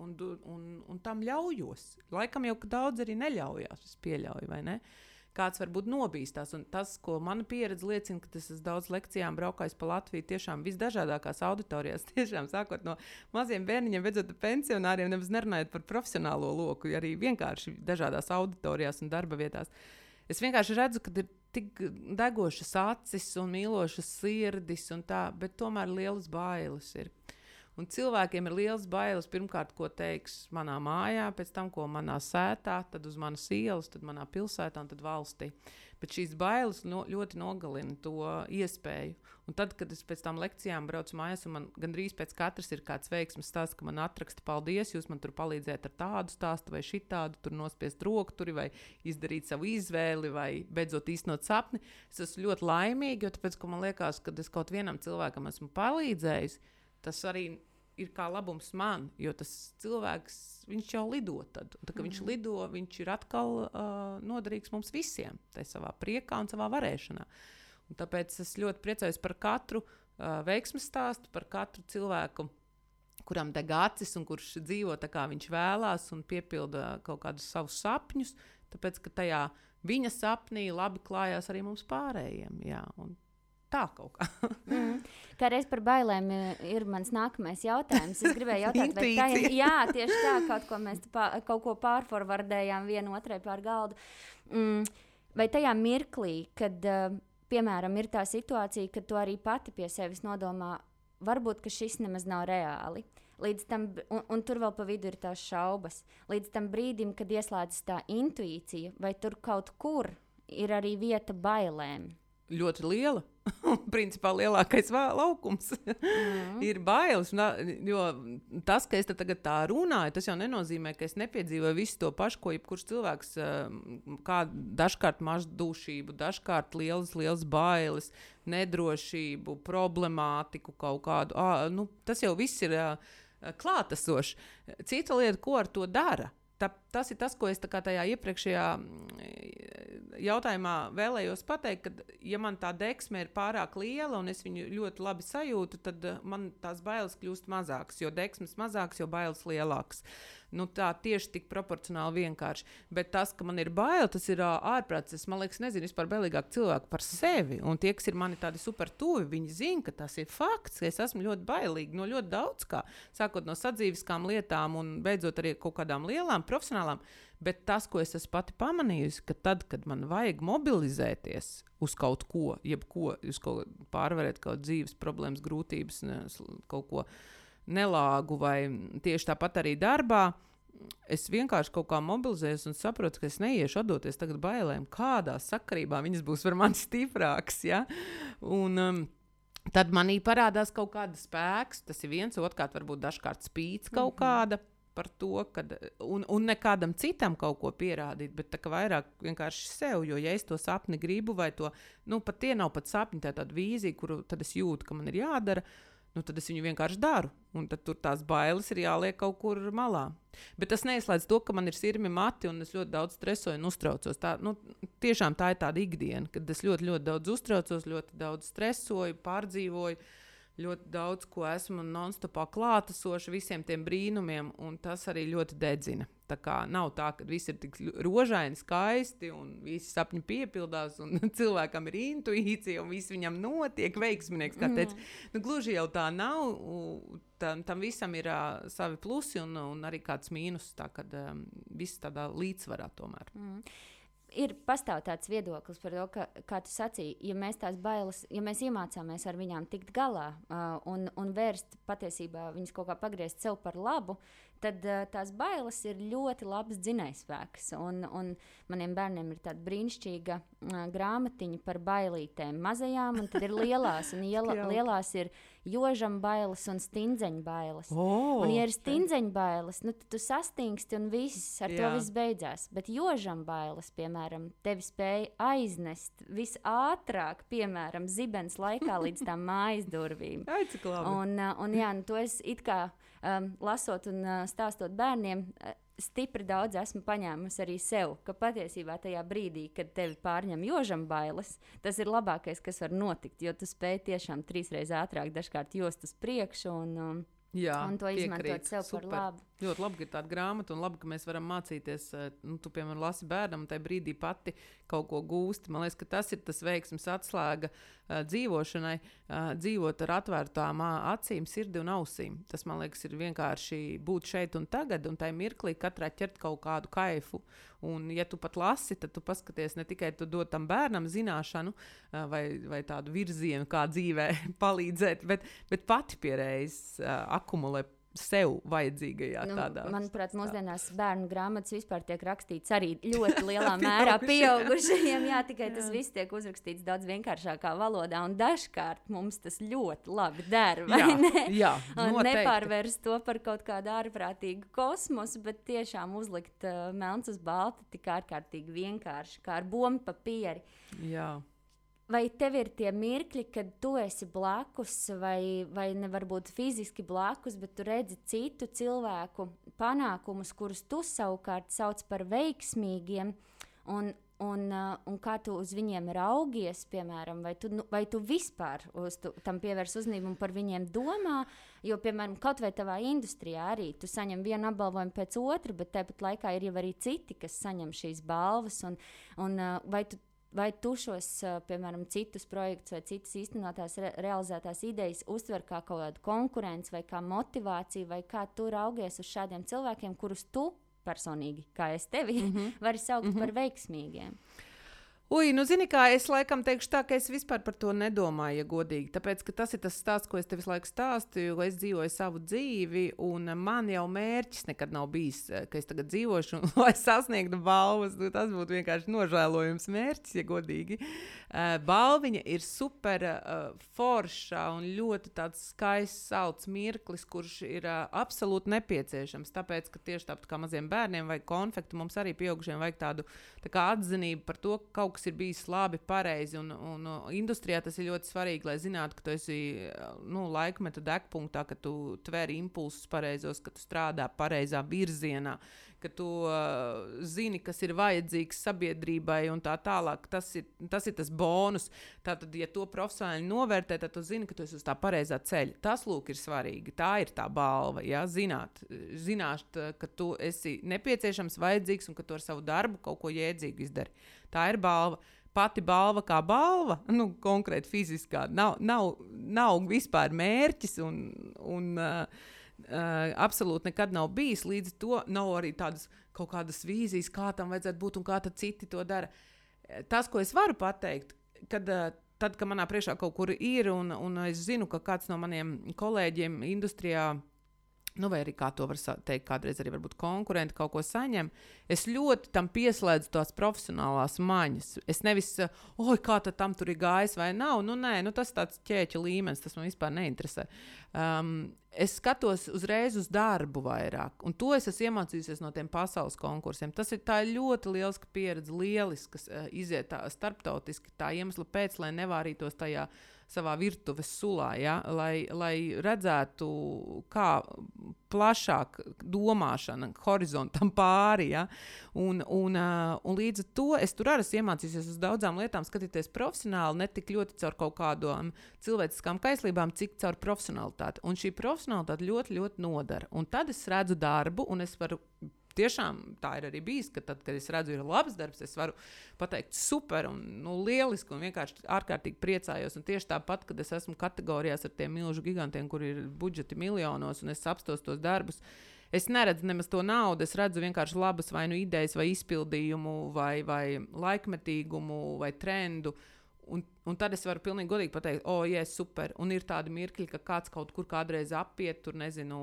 un tam ļaujos. Laikam jau daudz arī neļaujās, es pieļauju, vai ne? Kāds varbūt nobīstās, un tas, ko mana pieredze liecina, ka es esmu daudz lekcijām braukājis pa Latviju, tiešām visdažādākās auditorijās, tiešām sākot no maziem bērniņiem, beidzot pensionāriem, nemaz nerunājot par profesionālo loku, arī vienkārši dažādās auditorijās un darba vietās. Es vienkārši redzu, ka ir tik degošas acis un mīlošas sirdis un tā, bet tomēr lielas bailes ir. Un cilvēkiem ir liels bailes, pirmkārt, ko teiks manā mājā, pēc tam, ko manā sētā, tad uz manas ielas, tad manā pilsētā un tad valstī. Bet šīs bailes ļoti nogalina to iespēju. Un tad, kad es pēc tām lekcijām braucu mājās, un man gandrīz pēc katras ir kāds veiksmes stāsts, ka man atraksta paldies, jūs man tur palīdzējat ar tādu stāstu vai šitādu, tur nospiest rokturi vai izdarīt savu izvēli vai beidzot īstenot sapni. Es esmu ļoti laimīga, jo tāpēc, ka man liekas, ka es kaut vienam cilvēkam esmu palīdzējis, tas arī ir kā labums man, jo tas cilvēks, viņš jau lido tad. Un tā, kad viņš lido, viņš ir atkal noderīgs mums visiem, tai savā priekā un savā varēšanā. Un tāpēc es ļoti priecājos par katru veiksmes stāstu, par katru cilvēku, kuram deg acis un kurš dzīvo tā, kā viņš vēlās un piepilda kaut kādus savus sapņus, tāpēc, ka tajā viņa sapnī labi klājās arī mums pārējiem. Jā, un tā kaut kā. Kā reiz par bailēm ir mans nākamais jautājums. Es gribēju jautāt, vai tā ir, jā, tieši tā, kaut ko pārforvardējām vienu otrai pār galdu. Vai tajā mirklī, kad, piemēram, ir tā situācija, kad tu arī pati pie sevis nodomā, varbūt, ka šis nemaz nav reāli. Līdz tam, un tur vēl pa vidu ir tās šaubas. Līdz tam brīdim, kad ieslēdzas tā intuīcija, vai tur kaut kur ir arī vieta bailēm? ļoti liela. Principā lielākais laukums ir bailes. Jo tas, ka es tagad tā runāju, tas jau nenozīmē, ka es nepiedzīvoju visu to pašu, ko jebkurš cilvēks, kā dažkārt mazdūšību, dažkārt lielas bailes, nedrošību, problemātiku kaut kādu. Tas jau viss ir klātesošs. Cita lieta, ko ar to dara. Tas ir tas, ko es tajā iepriekšējā jautājumā vēlējos pateikt, ka, ja man tā deksme ir pārāk liela un es viņu ļoti labi sajūtu, tad man tās bailes kļūst mazākas, jo deksmes mazākas, jo bailes lielākas. Tā tieši tik proporcionāli vienkārši. Bet tas, ka man ir bail, tas ir ārprāts. Es, man liekas, nezinu vispār bailīgāk cilvēku par sevi. Un tie, kas ir mani tādi super tuvi, viņi zina, ka tas ir fakts, ka es esmu ļoti bailīga no ļoti daudz kā. Sākot no sadzīviskām lietām un beidzot arī kaut kādām lielām, profesionālām. Bet tas, ko es esmu pati pamanījusi, ka tad, kad man vajag mobilizēties uz kaut ko, uz kaut pārvarēt kaut dzīves problēmas, grūtības, kaut ko nelāgu vai tieši tāpat arī darbā, es vienkārši kaut kā mobilizējos un saprotu, ka es neiešu atdoties tagad bailēm, kādā sakarībā viņas būs par mani stiprākas, ja? Un tad manī parādās kaut kāda spēks, tas ir viens, otrkārt varbūt dažkārt spīts kaut kāda par to, kad, un nekādam citam kaut ko pierādīt, bet tā kā vairāk vienkārši sev, jo ja es to sapni gribu vai to, pat tie nav pat sapņi, tā tāda vīzija, kuru tad es jūtu, ka man ir jādara, tad es viņu vienkārši daru. Un tad tur tās bailes ir jāliek kaut kur malā. Bet tas neizslēdz to, ka man ir sirmi mati un es ļoti daudz stresoju un uztraucos. Tiešām tā ir tāda ikdiena, kad es ļoti, ļoti daudz uztraucos, ļoti daudz stresoju, pārdzīvoju, ļoti daudz, ko esmu non-stopā klātesoši visiem tiem brīnumiem, un tas arī ļoti dedzina. Tā kā nav tā, ka viss ir tik rožaini, skaisti, un visi sapņi piepildās, un cilvēkam ir intuīcija, un viss viņam notiek, veiksminieks, kā teica. Gluži jau tā nav, tam visam ir savi plusi, un arī kāds mīnus, tā kad viss tādā līdzsvarā tomēr. Pastāv tāds viedoklis par to, ka, kā tu sacīji, ja mēs tās bailes, ja mēs iemācāmies ar viņām tikt galā un vērst patiesībā viņas kaut kā pagriezt sev par labu, tad tās bailes ir ļoti labs dzinējspēks. Un maniem bērniem ir tāda brīnišķīga grāmatiņa par bailītēm mazajām, un tad ir lielās, un lielās ir jožam bailes un stindzeņu bailes. Un ja ir stindzeņu bailes, tad tu sastingsti un ar to viss beidzās. Bet jožam bailes, piemēram, tevi spēja aiznest visātrāk, piemēram, zibens laikā līdz tām mājas durvīm. Ai, cik labi. To es it kā lasot un stāstot bērniem, stipri daudz esmu paņēmusi arī sev, ka patiesībā tajā brīdī, kad tevi pārņem jožam bailes, tas ir labākais, kas var notikt, jo tu spēj tiešām 3 reizes ātrāk dažkārt jost uz priekšu un to izmantot sev par labu. Ļoti labi, ka ir tāda grāmata, un labi, ka mēs varam mācīties, tu, piemēram, lasi bērnam, un tajā brīdī pati kaut ko gūsti. Man liekas, ka tas ir tas veiksmes atslēga dzīvošanai, dzīvot ar atvērtām acīm, sirdi un ausīm. Tas, man liekas, ir vienkārši būt šeit un tagad, un tajā mirklī katrā ķert kaut kādu kaifu. Un, ja tu pat lasi, tad tu paskaties ne tikai tu dod tam bērnam zināšanu vai tādu virzienu, kā dzīvē palīdzēt, bet pati pierējas akumulē sev vajadzīgajā tādā. Manuprāt, mūsdienās bērnu grāmatas vispār tiek rakstīts arī ļoti lielā mērā pieaugušajiem. Jā, tikai tas viss tiek uzrakstīts daudz vienkāršākā valodā, un dažkārt mums tas ļoti labi der, vai ne? Jā, nepārvērst to par kaut kādu ārprātīgu kosmosu, bet tiešām uzlikt melns uz balta tik ārkārtīgi vienkārši, kā ar bombu papīri. Jā. Vai tev ir tie mirkļi, kad tu esi blakus, vai ne varbūt fiziski blakus, bet tu redzi citu cilvēku panākumus, kurus tu savukārt sauc par veiksmīgiem, un kā tu uz viņiem raugies, piemēram, vai tu vispār tam pievērs uzmanību un par viņiem domā, jo, piemēram, kaut vai tavā industrijā arī tu saņem vienu apbalvojumu pēc otra, bet tāpat laikā ir jau arī citi, kas saņem šīs balvas, un vai tu šos, piemēram, citus projektus vai citas īstenotās realizētās idejas uztver kā kaut kādu konkurenci vai kā motivāciju, vai kā tu raugies uz šādiem cilvēkiem, kurus tu personīgi, kā es tevi, vari saukt par veiksmīgiem? Zini kā, es laikam teikšu tā, ka es vispār par to nedomāju, ja godīgi. Tāpēc, ka tas ir tas stāsts, ko es tev visu laiku stāstu, jo es dzīvoju savu dzīvi, un man jau mērķis nekad nav bijis, ka es tagad dzīvošu, lai sasniegtu balvas. Tas būtu vienkārši nožēlojums mērķis, ja godīgi. Balviņa ir super forša un ļoti tāds skaists, salds mirklis, kurš ir absolūti nepieciešams. Tāpēc, ka tieši tāpat kā maziem bērniem vajag konfektu, mums arī pieaugušiem vajag tādu tā kā atzinību par to, ka kaut kas ir bijis labi, pareizi. Un industrijā tas ir ļoti svarīgi, lai zinātu, ka tu esi laikmeta degpunktā, ka tu tver impulsus pareizos, ka tu strādā pareizā virzienā, ka tu zini, kas ir vajadzīgs sabiedrībai un tā tālāk. Tas ir tas bonus. Tātad, ja to profesionāli novērtē, tad tu zini, ka tu esi uz tā pareizā ceļa. Tas, lūk, ir svarīgi. Tā ir tā balva, ja? Zināt, ka tu esi nepieciešams, vajadzīgs un ka tu ar savu darbu kaut ko jēdzīgu izdari. Tā ir balva. Pati balva kā balva, konkrēti fiziskā, nav vispār mērķis un absolūti nekad nav bijis. Līdz to nav arī tādas kaut kādas vīzijas, kā tam vajadzētu būt un kā tad citi to dara. Tas, ko es varu pateikt, tad, kad manā priekšā kaut kur ir un es zinu, ka kāds no maniem kolēģiem industrijā, vai arī kā to var teikt, kādreiz arī varbūt konkurenti kaut ko saņem, es ļoti tam pieslēdzu tās profesionālās maņas. Es nevis, kā tad tam tur ir gājis vai nav, nē, tas tāds ķēķa līmenis, tas man vispār neinteresē. Es skatos uzreiz uz darbu vairāk, un to es esmu iemācījusies no tiem pasaules konkursiem. Tā ir ļoti lieliska pieredze, lieliskas iziet tā starptautiski tā iemesla pēc, lai nevārītos tajā savā virtuves sulā, ja? lai redzētu, kā plašāk domāšana horizontam pāri. Ja? Un līdz ar to es tur arī iemācījusies uz daudzām lietām skatīties profesionāli, ne tik ļoti caur kaut kādām cilvēciskām kaislībām, cik caur profesionalitāti. Un šī profesionalitāte ļoti, ļoti nodara. Un tad es redzu darbu, un es varu tiešām tā ir arī bijis, ka tad, kad es redzu, ir labs darbs, es varu pateikt super un lieliski un vienkārši ārkārtīgi priecājos. Un tieši tāpat, kad es esmu kategorijās ar tiem milžu gigantiem, kur ir budžeti miljonos un es apstos tos darbus, es neredzu nemaz to naudu, es redzu vienkārši labas vai idejas vai izpildījumu vai laikmetīgumu vai trendu. Un tad es varu pilnīgi godīgi pateikt, super. Un ir tādi mirkļi, ka kāds kaut kur kādreiz apiet, tur nezinu,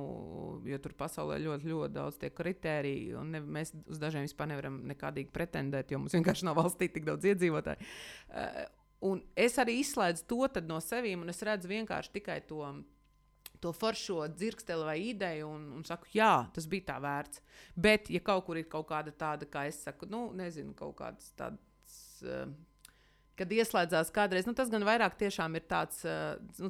jo tur pasaulē ļoti, ļoti daudz tie kritēriji, un mēs uz dažiem vispār nevaram nekādīgi pretendēt, jo mums vienkārši nav valstī tik daudz iedzīvotāju. Un es arī izslēdzu to tad no sevīm, un es redzu vienkārši tikai to foršo dzirksteli vai ideju un saku, jā, tas bija tā vērts. Bet, ja kaut kur ir kaut kāda tāda, kā es saku, nezinu, kaut kādas tādas... kad ieslēdzās kādreiz, tas gan vairāk tiešām ir tāds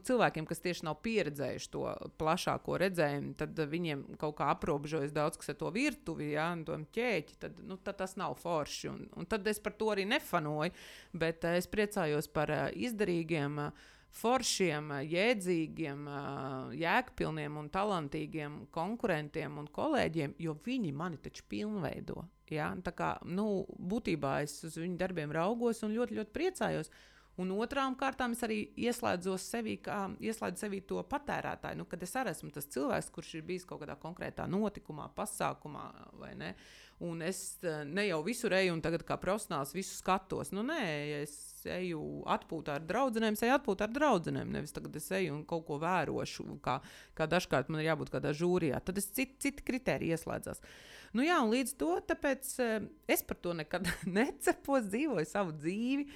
cilvēkiem, kas tieši nav pieredzējuši to plašāko redzējumu, tad viņiem kaut kā aprobežojas daudz, kas ar to virtuvi, ja, un to ķēķi, tad tas nav forši. Un tad es par to arī nefanoju, bet es priecājos par izdarīgiem, foršiem, jēdzīgiem, jēgpilniem un talantīgiem konkurentiem un kolēģiem, jo viņi mani taču pilnveido. Ja? Tā kā, būtībā es uz viņu darbiem raugos un ļoti, ļoti priecājos. Un otrām kārtām es arī ieslēdzu sevī to patērētāju, kad es arī esmu tas cilvēks, kurš ir bijis kaut kādā konkrētā notikumā, pasākumā, vai ne? Un es ne jau visur eju un tagad kā profesionāls visu skatos. Nē, es eju atpūtā ar draudzenēm, nevis tagad es eju un kaut ko vērošu, kā dažkārt man ir jābūt kādā žūrijā. Tad es citi kritēriji ieslēdzās. Jā, un līdz to, tāpēc es par to nekad necepos, dzīvoju savu dzīvi.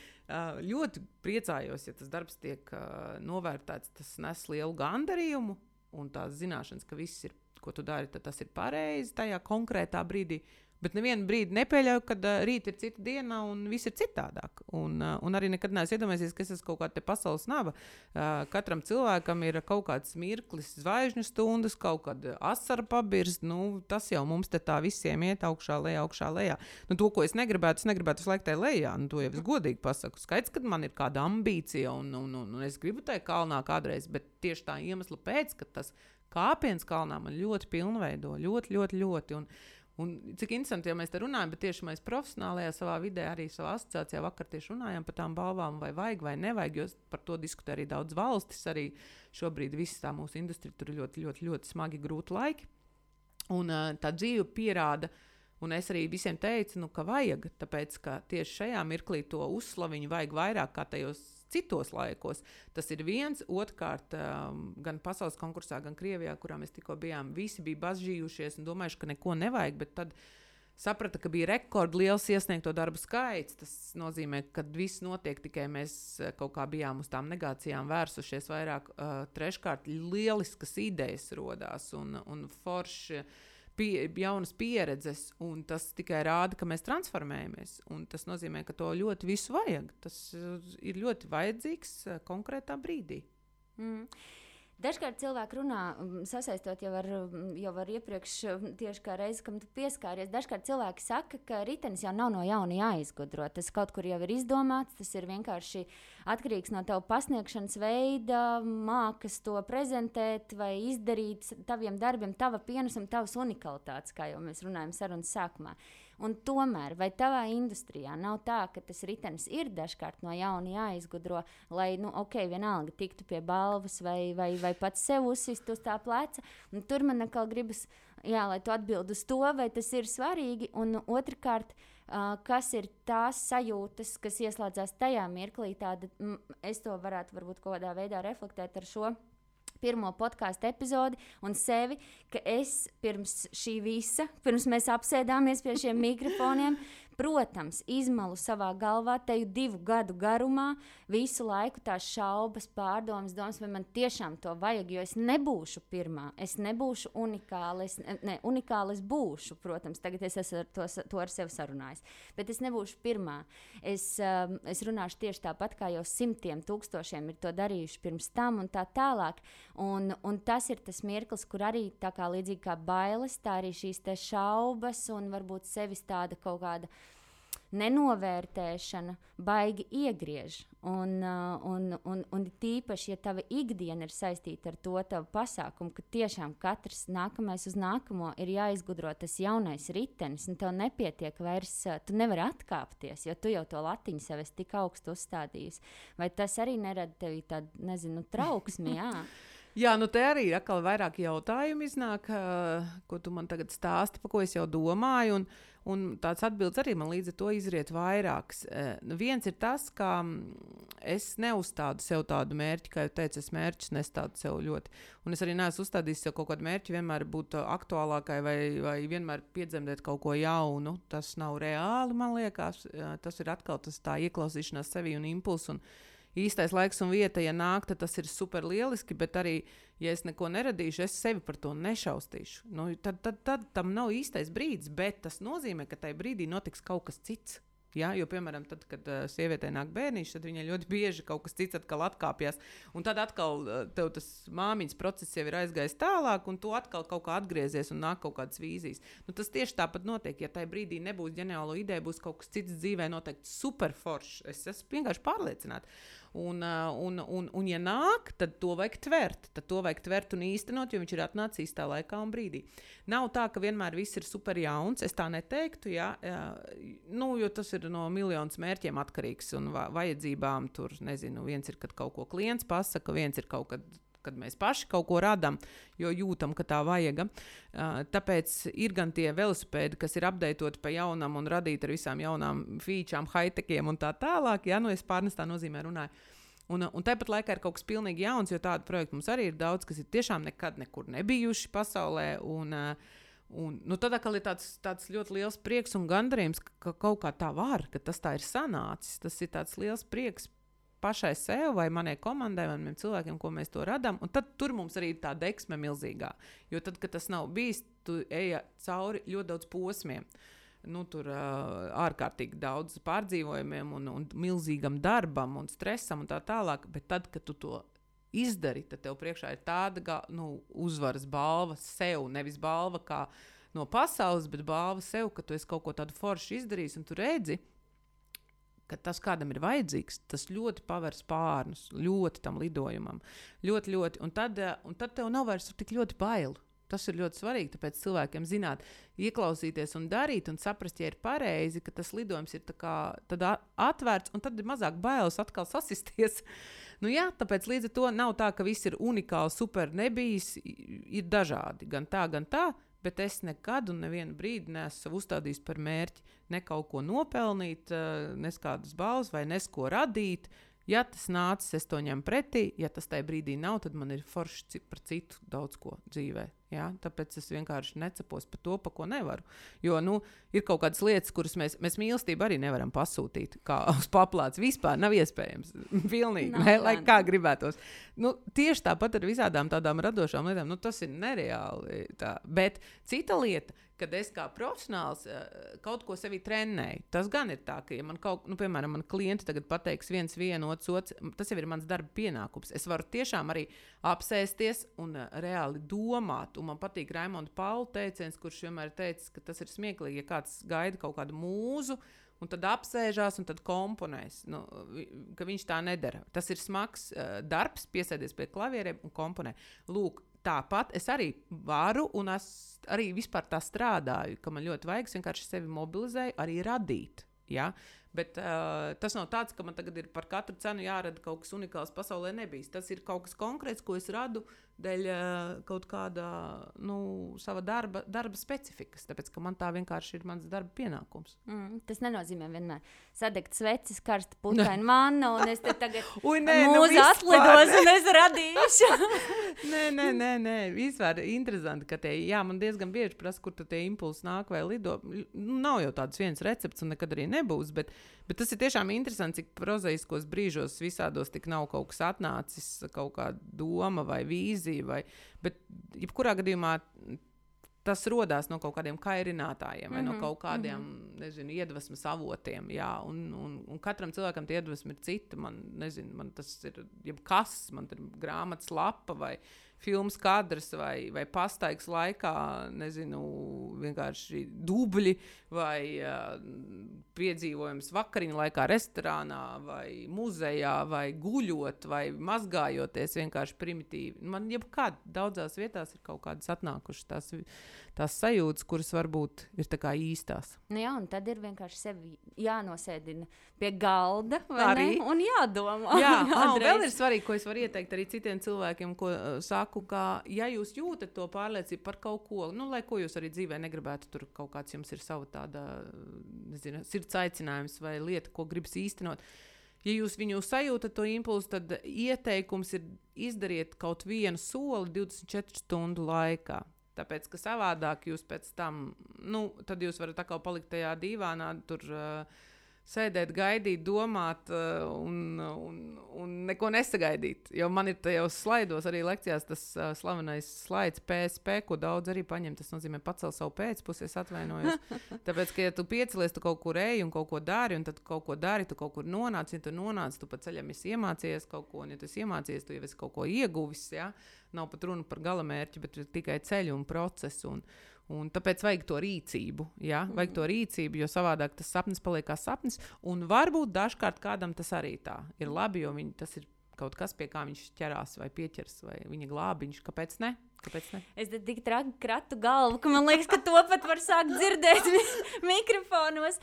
Ļoti priecājos, ja tas darbs tiek novērtēts, tas nes lielu gandarījumu un tās zināšanas, ka viss ir, ko tu dari, tad tas ir pareizi tajā konkrētā brīdī. Bet nevienu brīdi nepieļauju, kad rīt ir cita diena un viss ir citādāk. Un arī nekad neesmu iedomājies, ka es esmu kaut kāda pasaules naba. Katram cilvēkam ir kaut kāds mirklis, zvaigžņu stundas, kaut kāda asara pabirst. Tas jau mums te tā visiem iet augšā, lejā. To, ko es negribētu visu laiku tai lejā. To jau es godīgi pasaku. Skaidrs, kad man ir kāda ambīcija un es gribu tai kalnā kādreiz, bet tieši tā iemesla pēc, ka tas kāpiens kalnā man ļoti pilnveido. Ļoti. Un cik interesanti, ja mēs te runājam, bet tieši mēs profesionālajā savā vidē, arī savā asociācijā vakar tieši runājam par tām balvām, vai vajag vai nevajag, jo par to diskutē arī daudz valstis, arī šobrīd viss tā mūsu industrija tur ir ļoti smagi grūti laiki. Un tā dzīve pierāda, Un es arī visiem teicu, ka vajag, tāpēc, ka tieši šajā mirklī to uzslaviņu vajag vairāk kā tajos citos laikos. Tas ir viens, otrkārt, gan pasaules konkursā, gan Krievijā, kurā mēs tikko bijām, visi bija bažījušies un domājuši, ka neko nevajag, bet tad saprata, ka bija rekordliels iesniegto darbu skaits. Tas nozīmē, ka viss notiek, tikai mēs kaut kā bijām uz tām negācijām vērsušies vairāk. Treškārt, lieliskas idejas rodās un forši jaunas pieredzes, un tas tikai rāda, ka mēs transformējamies. Un tas nozīmē, ka to ļoti visu vajag. Tas ir ļoti vajadzīgs konkrētā brīdī. Dažkārt cilvēki runā, sasaistot jau ar iepriekš, tieši kā reizi, kam tu pieskāries. Dažkārt cilvēki saka, ka ritenis jau nav no jauna jāizgudro. Tas kaut kur jau ir izdomāts, tas ir vienkārši atkarīgs no tava pasniegšanas veida, mākas to prezentēt vai izdarīt taviem darbiem, tava pienesuma, tavas unikalitātes, kā jau mēs runājam sarunas sākumā. Un tomēr, vai tavā industrijā nav tā, ka tas ritenis ir dažkārt no jauna jāizgudro, lai, vienalga tiktu pie balvas vai pats sev uzsist uz tā pleca? Un tur man atkal gribas, lai tu atbildi uz to, vai tas ir svarīgi. Un otrkārt, kas ir tās sajūtas, kas ieslēdzās tajā mirklī, es to varētu varbūt kaut kādā veidā reflektēt ar šo pirmo podkāstu epizodi un sevi, ka es pirms šī visa, pirms mēs apsēdāmies pie šiem mikrofoniem, protams, izmalu savā galvā teju 2 gadu garumā visu laiku tās šaubas, pārdomas, domas, vai man tiešām to vajag, jo es nebūšu pirmā, es nebūšu unikāla, unikāla es būšu, protams, tagad es esmu to ar sevi sarunājis, bet es nebūšu pirmā. Es runāšu tieši tāpat, kā jau 100 000 ir to darījuši pirms tam un tā tālāk, un tas ir tas mirklis, kur arī tā kā līdzīgi kā bailes, tā arī šīs te šaubas un varbūt sevis tāda kaut kāda nenovērtēšana baigi iegriež. Un tīpaši, ja tava ikdiena ir saistīta ar to tavu pasākumu, ka tiešām katrs nākamais uz nākamo ir jāizgudro tas jaunais ritenis, un tev nepietiek vairs, tu nevari atkāpties, jo tu jau to latiņu sev esi tik augstu uzstādījis. Vai tas arī nerada tevi tādu, trauksmi, jā? Jā, te arī atkal vairāk jautājumu iznāk, ko tu man tagad stāsti, pa ko es jau domāju, un tāds atbildes arī man līdz ar to izriet vairāks. Viens ir tas, ka es neuzstādu sev tādu mērķi, kā jau teicu, es mērķus nestādu sev ļoti. Un es arī neesmu uzstādījis sev kaut kādu mērķi vienmēr būt aktuālākai vai vienmēr piedzemdēt kaut ko jaunu. Tas nav reāli, man liekas. Tas ir atkal tā ieklausīšanās sevī un impulsu. Un īstais laiks un vieta, ja nāk, tad tas ir super lieliski, bet arī, ja es neko neradīšu, es sevi par to nešaustīšu. Tad tam nav īstais brīdis, bet tas nozīmē, ka tajā brīdī notiks kaut kas cits. Ja? Jo, piemēram, tad, kad sievietei nāk bērniņš, tad viņai ļoti bieži kaut kas cits atkal atkāpjas. Un tad atkal tev tas māmiņas process jau ir aizgājis tālāk, un tu atkal kaut kā atgriezies un nāk kaut kādas vīzijas. Tas tieši tāpat notiek. Ja tajā brīdī nebūs ģeniālo ideju, būs kaut kas cits dzīvē noteikti super foršs. Es esmu vienkārši pārliecināta. Un, ja nāk, tad to vajag tvert. Tad to vajag tvert un īstenot, jo viņš ir atnācis īstā laikā un brīdī. Nav tā, ka vienmēr viss ir super jauns. Es tā neteiktu, jo tas ir no miljonus mērķiem atkarīgs un vajadzībām. Tur, nezinu, viens ir, kad kaut ko klients pasaka, viens ir kaut kad mēs paši kaut ko radām, jo jūtam, ka tā vajag. Tāpēc ir gan tie velosipēdi, kas ir updatoti pa jaunam un radīti ar visām jaunām featurām, high-techiem un tā tālāk. Es pārnestā nozīmē runāju. Un tāpat laikā ir kaut kas pilnīgi jauns, jo tādu projektu mums arī ir daudz, kas ir tiešām nekad nekur nebijuši pasaulē. Tad atkal ir tāds ļoti liels prieks un gandarījums, ka kaut kā tā var, ka tas tā ir sanācis. Tas ir tāds liels prieks pašai sev vai manai komandai, vai maniem cilvēkiem, ko mēs to radām. Un tad tur mums arī ir tā deksme milzīgā. Jo tad, kad tas nav bijis, tu ej cauri ļoti daudz posmiem. Tur ārkārtīgi daudz pārdzīvojumiem un milzīgam darbam un stresam un tā tālāk. Bet tad, kad tu to izdari, tad tev priekšā ir tāda uzvaras balva sev. Nevis balva kā no pasaules, bet balva sev, ka tu esi kaut ko tādu foršu izdarījis un tu redzi, ka tas kādam ir vajadzīgs, tas ļoti paver spārnus, ļoti tam lidojumam. Ļoti, ļoti. Un tad tev nav vairs tik ļoti bail. Tas ir ļoti svarīgi, tāpēc cilvēkiem zināt, ieklausīties un darīt un saprast, ja ir pareizi, ka tas lidojums ir tad atvērts un tad ir mazāk bailes atkal sasisties. Tāpēc līdz ar to nav tā, ka viss ir unikāli, super nebijis, ir dažādi. Gan tā, bet es nekad un nevienu brīdi neesmu uzstādījis par mērķi ne kaut ko nopelnīt, nes kādas balvas vai nes ko radīt. Ja tas nācis, es to ņemu pretī. Ja tas tajā brīdī nav, tad man ir forši par citu daudz ko dzīvē. Ja? Tāpēc es vienkārši necepos par to, pa ko nevaru. Jo, ir kaut kādas lietas, kuras mēs mīlestību arī nevaram pasūtīt, kā uz paplātes. Vispār nav iespējams. Pilnīgi, lai kā gribētos. Tieši tāpat ar visādām tādām radošām lietām. Tas ir nereāli. Tā. Bet cita lieta, kad es kā profesionāls kaut ko sevi trenēju, tas gan ir tā, ka, ja man piemēram, man klienti tagad pateiks viens, otrs, tas jau ir mans darba pienākums. Es varu tiešām arī apsēsties un reāli domāt. Un man patīk Raimonda Paula teiciens, kurš vienmēr ir teicis, ka tas ir smieklīgi, ja kāds gaida kaut kādu mūzu, un tad apsēžās un tad komponēs. Ka viņš tā nedara. Tas ir smags darbs, piesēdies pie klavieriem un komponē. Lūk, tāpat es arī varu, un es arī vispār tā strādāju, ka man ļoti vajag, es vienkārši sevi mobilizēju, arī radīt. Ja? Bet tas nav tāds, ka man tagad ir par katru cenu jārada kaut kas unikāls pasaulē nebijis. Tas ir kaut kas konkrēts, ko es radu dēļ kaut kāda sava darba specifikas, tāpēc, ka man tā vienkārši ir mans darba pienākums. Tas nenozīmē vienmēr sadegt sveces, karsta putraina manna, un es te tagad mūza atlidos, un es radīšu. Nē, vispār interesanti, ka man diezgan bieži prasa, kur tie impulsi nāk vai lido. Nav jau tāds viens recepts, un nekad arī nebūs, bet tas ir tiešām interesanti, cik prozaiskos brīžos visādos tik nav kaut kas atnācis, kaut kāda doma vai vīzija, bet jebkurā gadījumā tas rodās no kaut kādiem kairinātājiem vai no kaut kādiem, iedvesmas avotiem, jā, un katram cilvēkam tie iedvesmi ir cita, man tas ir jebkas, man ir grāmatas lapa vai filmas kadrs vai pastaigas laikā, vienkārši dubļi vai piedzīvojums vakariņu laikā restorānā vai muzejā vai guļot vai mazgājoties vienkārši primitīvi. Man jebkād daudzās vietās ir kaut kādas atnākušas tās sajūtas, kuras varbūt ir tā kā īstās. Jā, un tad ir vienkārši sevi jānosēdina pie galda, vai arī ne? Un jādomā. Jā, un vēl ir svarīgi, ko es varu ieteikt arī citiem cilvēkiem, ko saku, ka ja jūs jūtat to pārliecību par kaut ko, lai ko jūs arī dzīvē negribētu, tur kaut kāds jums ir sava tāda, sirds aicinājums vai lieta, ko gribas īstenot. Ja jūs viņu sajūtat to impulsu, tad ieteikums ir izdariet kaut vienu soli 24 stundu laikā. Tāpēc, ka savādāk jūs pēc tam, tad jūs varat atkal palikt tajā dīvānā, tur sēdēt, gaidīt, domāt un neko nesagaidīt. Jo man ir tajos slaidos arī lekcijās tas slavenais slaids PSP, ko daudz arī paņem. Tas nozīmē pacel savu pēcpusi, es atvainojos. Tāpēc, ka ja tu piecelies, tu kaut kur eji un kaut ko dari, un tad kaut ko dari, tu kaut kur nonāc. Ja tu nonāc, tu pa ceļam esi iemācījies kaut ko, un ja tu esi iemācījies, tu jau esi kaut ko ieguvis, ja? Nav pat runa par galamērķi, bet tikai ceļu un procesu. Un tāpēc vajag to rīcību, ja? Vajag to rīcību, jo savādāk tas sapnis paliek kā sapnis. Un varbūt dažkārt kādam tas arī tā ir labi, jo tas ir kaut kas, pie kā viņš ķerās vai pieķers, vai viņa glābiņš. Kāpēc ne? Es tik kratu galvu, ka man liekas, ka to pat var sākt dzirdēt mikrofonos.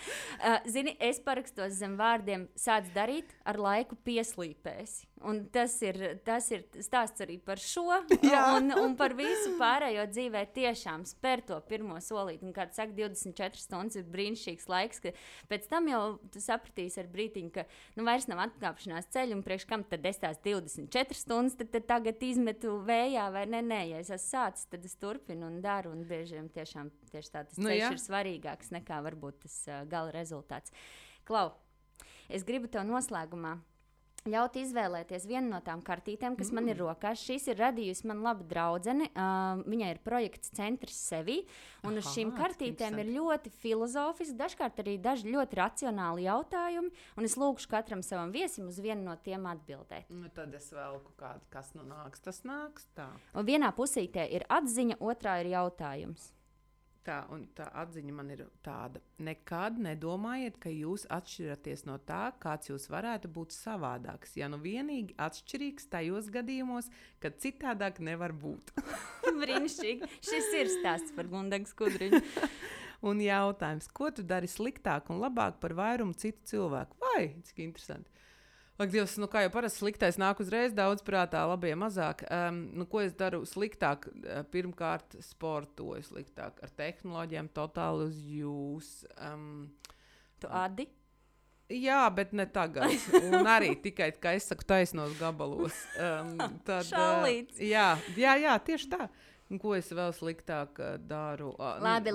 Zini, es parakstos zem vārdiem sāc darīt, ar laiku pieslīpēsi. Un tas ir stāsts arī par šo un par visu pārējo dzīvē tiešām spēr to pirmo solīti. Un, kā tu saki, 24 stundas ir brīnišķīgs laiks, ka pēc tam jau tu sapratīsi ar brītiņu, ka vairs nav atkāpšanās ceļu, un priekš kam tad es tās 24 stundas tad tagad izmetu vējā vai nē, ja es esmu sācis, tad es turpinu un daru, un bieži tieši tā tas ceļš ir svarīgāks nekā varbūt tas gala rezultāts. Klau, es gribu tev noslēgumā ļaut izvēlēties vienu no tām kartītēm, kas man ir rokās. Šīs ir radījusi man laba draudzene. Viņai ir projekts Centrs Sevī. Un uz šīm kartītēm ir ļoti filozofiski, dažkārt arī daži ļoti racionāli jautājumi. Un es lūgšu katram savam viesim uz vienu no tiem atbildēt. Tad es velku kādu, kas nāks, tas nāks tā. Un vienā pusītē ir atziņa, otrā ir jautājums. Un tā atziņa man ir tāda. Nekad nedomājiet, ka jūs atšķiraties no tā, kāds jūs varētu būt savādāks. Ja vienīgi atšķirīgs tajos gadījumos, kad citādāk nevar būt. Brīnišķīgi. Šis ir stāsts par Gundagu Skudriņu. Un jautājums, ko tu dari sliktāk un labāk par vairumu citu cilvēku? Vai, cik interesanti. Ak, Dievs, kā jau parasti sliktais nāk uzreiz daudz prātā, labie mazāk. Ko es daru sliktāk? Pirmkārt, sportoju sliktāk ar tehnoloģijām, totāli uz jūs. Tu adi? Jā, bet ne tagad. Un arī tikai, kā es saku, taisnos gabalos. Šalīts. Jā, tieši tā. Un ko es vēl sliktāk daru? Labi.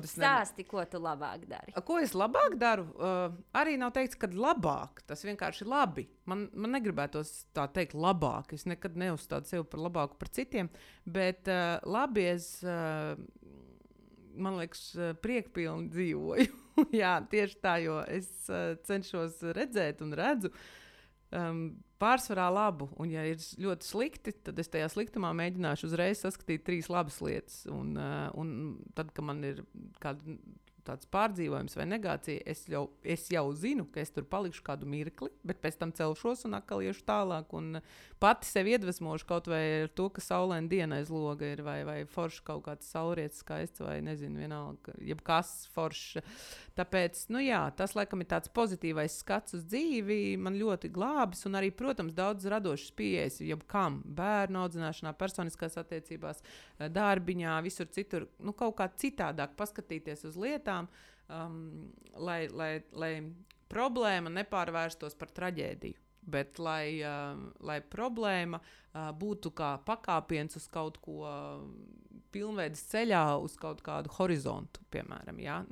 Stāsti, ko tu labāk dari. Ko es labāk daru? Arī nav teikts, ka labāk. Tas vienkārši labi. Man negribētos tā teikt labāk. Es nekad neuzstādu sevi par labāku par citiem. Bet labi es, man liekas, priekpilni dzīvoju. Jā, tieši tā, jo es cenšos redzēt un redzu pārsvarā labu, un ja ir ļoti slikti, tad es tajā sliktumā mēģināšu uzreiz saskatīt 3 labas lietas, un tad, kad man ir kāda tāds pārdzīvojums vai negācija, es jau zinu, ka es tur palikšu kādu mirkli, bet pēc tam celšos un atkal iešu tālāk, un pati sevi iedvesmošu kaut vai ar to, ka saulaina diena aiz loga ir, vai forši kaut kāds saulrietis skaists, vai nezinu, vienalga, jebkas forši. Tāpēc, tas laikam ir tāds pozitīvais skats uz dzīvi, man ļoti glābis, un arī, protams, daudz radošas pieejas, jebkam, bērnu audzināšanā, personiskās attiecībās, darbiņā, visur citur, kaut kā citādāk paskatīties uz lietām, lai problēma nepārvērstos par traģēdiju, bet lai problēma būtu kā pakāpiens uz kaut ko pilnveidas ceļā, uz kaut kādu horizontu, piemēram. Ja?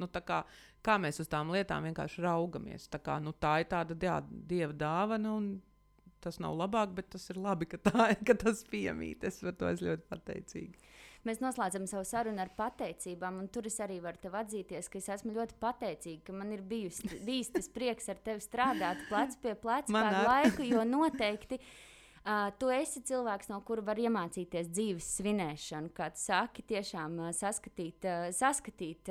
Kā mēs uz tām lietām vienkārši raugamies. Tā ir tāda dieva dāvana, un tas nav labāk, bet tas ir labi, ka tas piemīt. Es par to esmu ļoti pateicīga. Mēs noslēdzam savu sarunu ar pateicībām, un tur es arī varu tev atzīties, ka es esmu ļoti pateicīga, ka man ir bijis tas prieks ar tevi strādāt plec pie pleca kādu laiku, jo noteikti tu esi cilvēks, no kura var iemācīties dzīves svinēšanu, kā tu saki, tiešām saskatīt,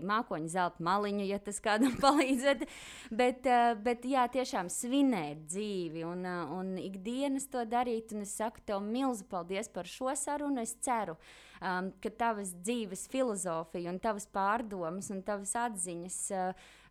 mākoņu zelta maliņu, ja tas kādam palīdzēt, bet jā, tiešām svinēt dzīvi un ikdienas to darīt, un es saku tev milzu paldies par šo sarunu, es ceru, ka tavas dzīves filozofija un tavas pārdomas un tavas atziņas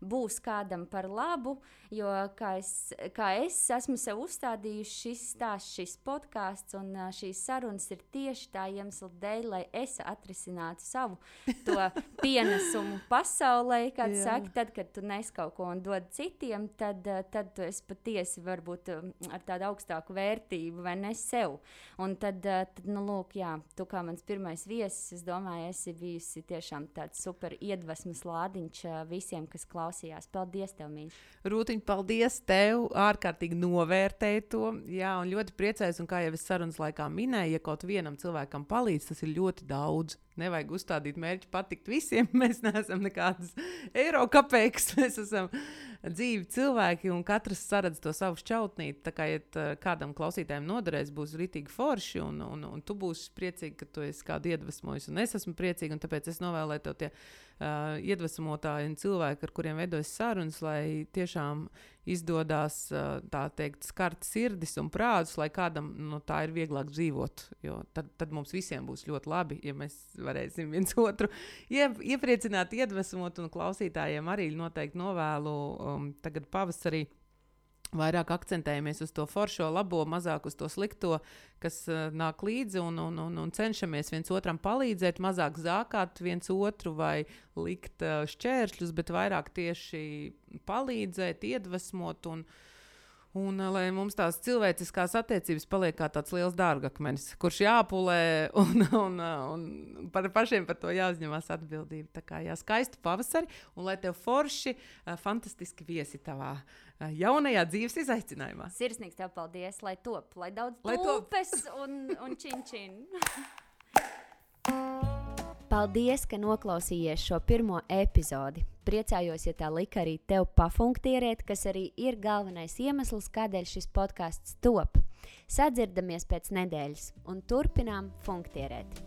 būs kādam par labu, jo kā es esmu sev uzstādījuši šis podcasts un šīs sarunas ir tieši tā iemesla dēļ, lai es atrisinātu savu to pienesumu pasaulē, kā tu saki, tad, kad tu nes kaut ko un dod citiem, tad tu esi patiesi varbūt ar tādu augstāku vērtību vai ne sev. Un tad lūk, jā, tu kā mans pirmais viesis, es domāju, esi bijusi tiešām tāds super iedvesmas lādiņš visiem, kas klausījās. Paldies tev, mīļš. Rūtiņ, paldies tev, ārkārtīgi novērtēju to, jā, un ļoti priecājos, un kā jau es sarunas laikā minēju, ja kaut vienam cilvēkam palīdz, tas ir ļoti daudz. Nevajag uzstādīt mērķi patikt visiem, mēs neesam nekādas eiro kapeikas, mēs esam dzīvi cilvēki, un katrs saredz to savu šķautnīti, tā kā, ja kādam klausītājiem noderēs, būs ritīgi forši, un tu būsi priecīgi, ka tu esi kādu iedvesmojis, un es esmu priecīgi, un tāpēc es novēlēju tev tie iedvesmotāji un cilvēki, ar kuriem veidojas sarunas, lai tiešām izdodās, tā teikt, skart sirdis un prātus, lai kādam tā ir vieglāk dzīvot, jo tad mums visiem būs ļoti labi, ja mēs varēsim viens otru iepriecināt, iedvesmot, un klausītājiem arī noteikti novēlu tagad pavasarī vairāk akcentējamies uz to foršo, labo, mazāk uz to slikto, kas nāk līdzi, un cenšamies viens otram palīdzēt, mazāk zākāt viens otru vai likt šķēršļus, bet vairāk tieši palīdzēt, iedvesmot un lai mums tās cilvēciskās attiecības paliek kā tāds liels dārgakmenis, kurš jāpulē un par pašiem par to jāuzņemās atbildība. Tā kā skaistu pavasari, un lai tev forši, fantastiski viesi tavā jaunajā dzīves izaicinājumā. Sirsnīgs tev paldies, lai top, lai daudz tulpes un čin. Paldies, ka noklausījies šo pirmo epizodi. Priecājos, ja tā lika arī tev pafunktierēt, kas arī ir galvenais iemesls, kādēļ šis podcasts top. Sadzirdamies pēc nedēļas un turpinām funktierēt.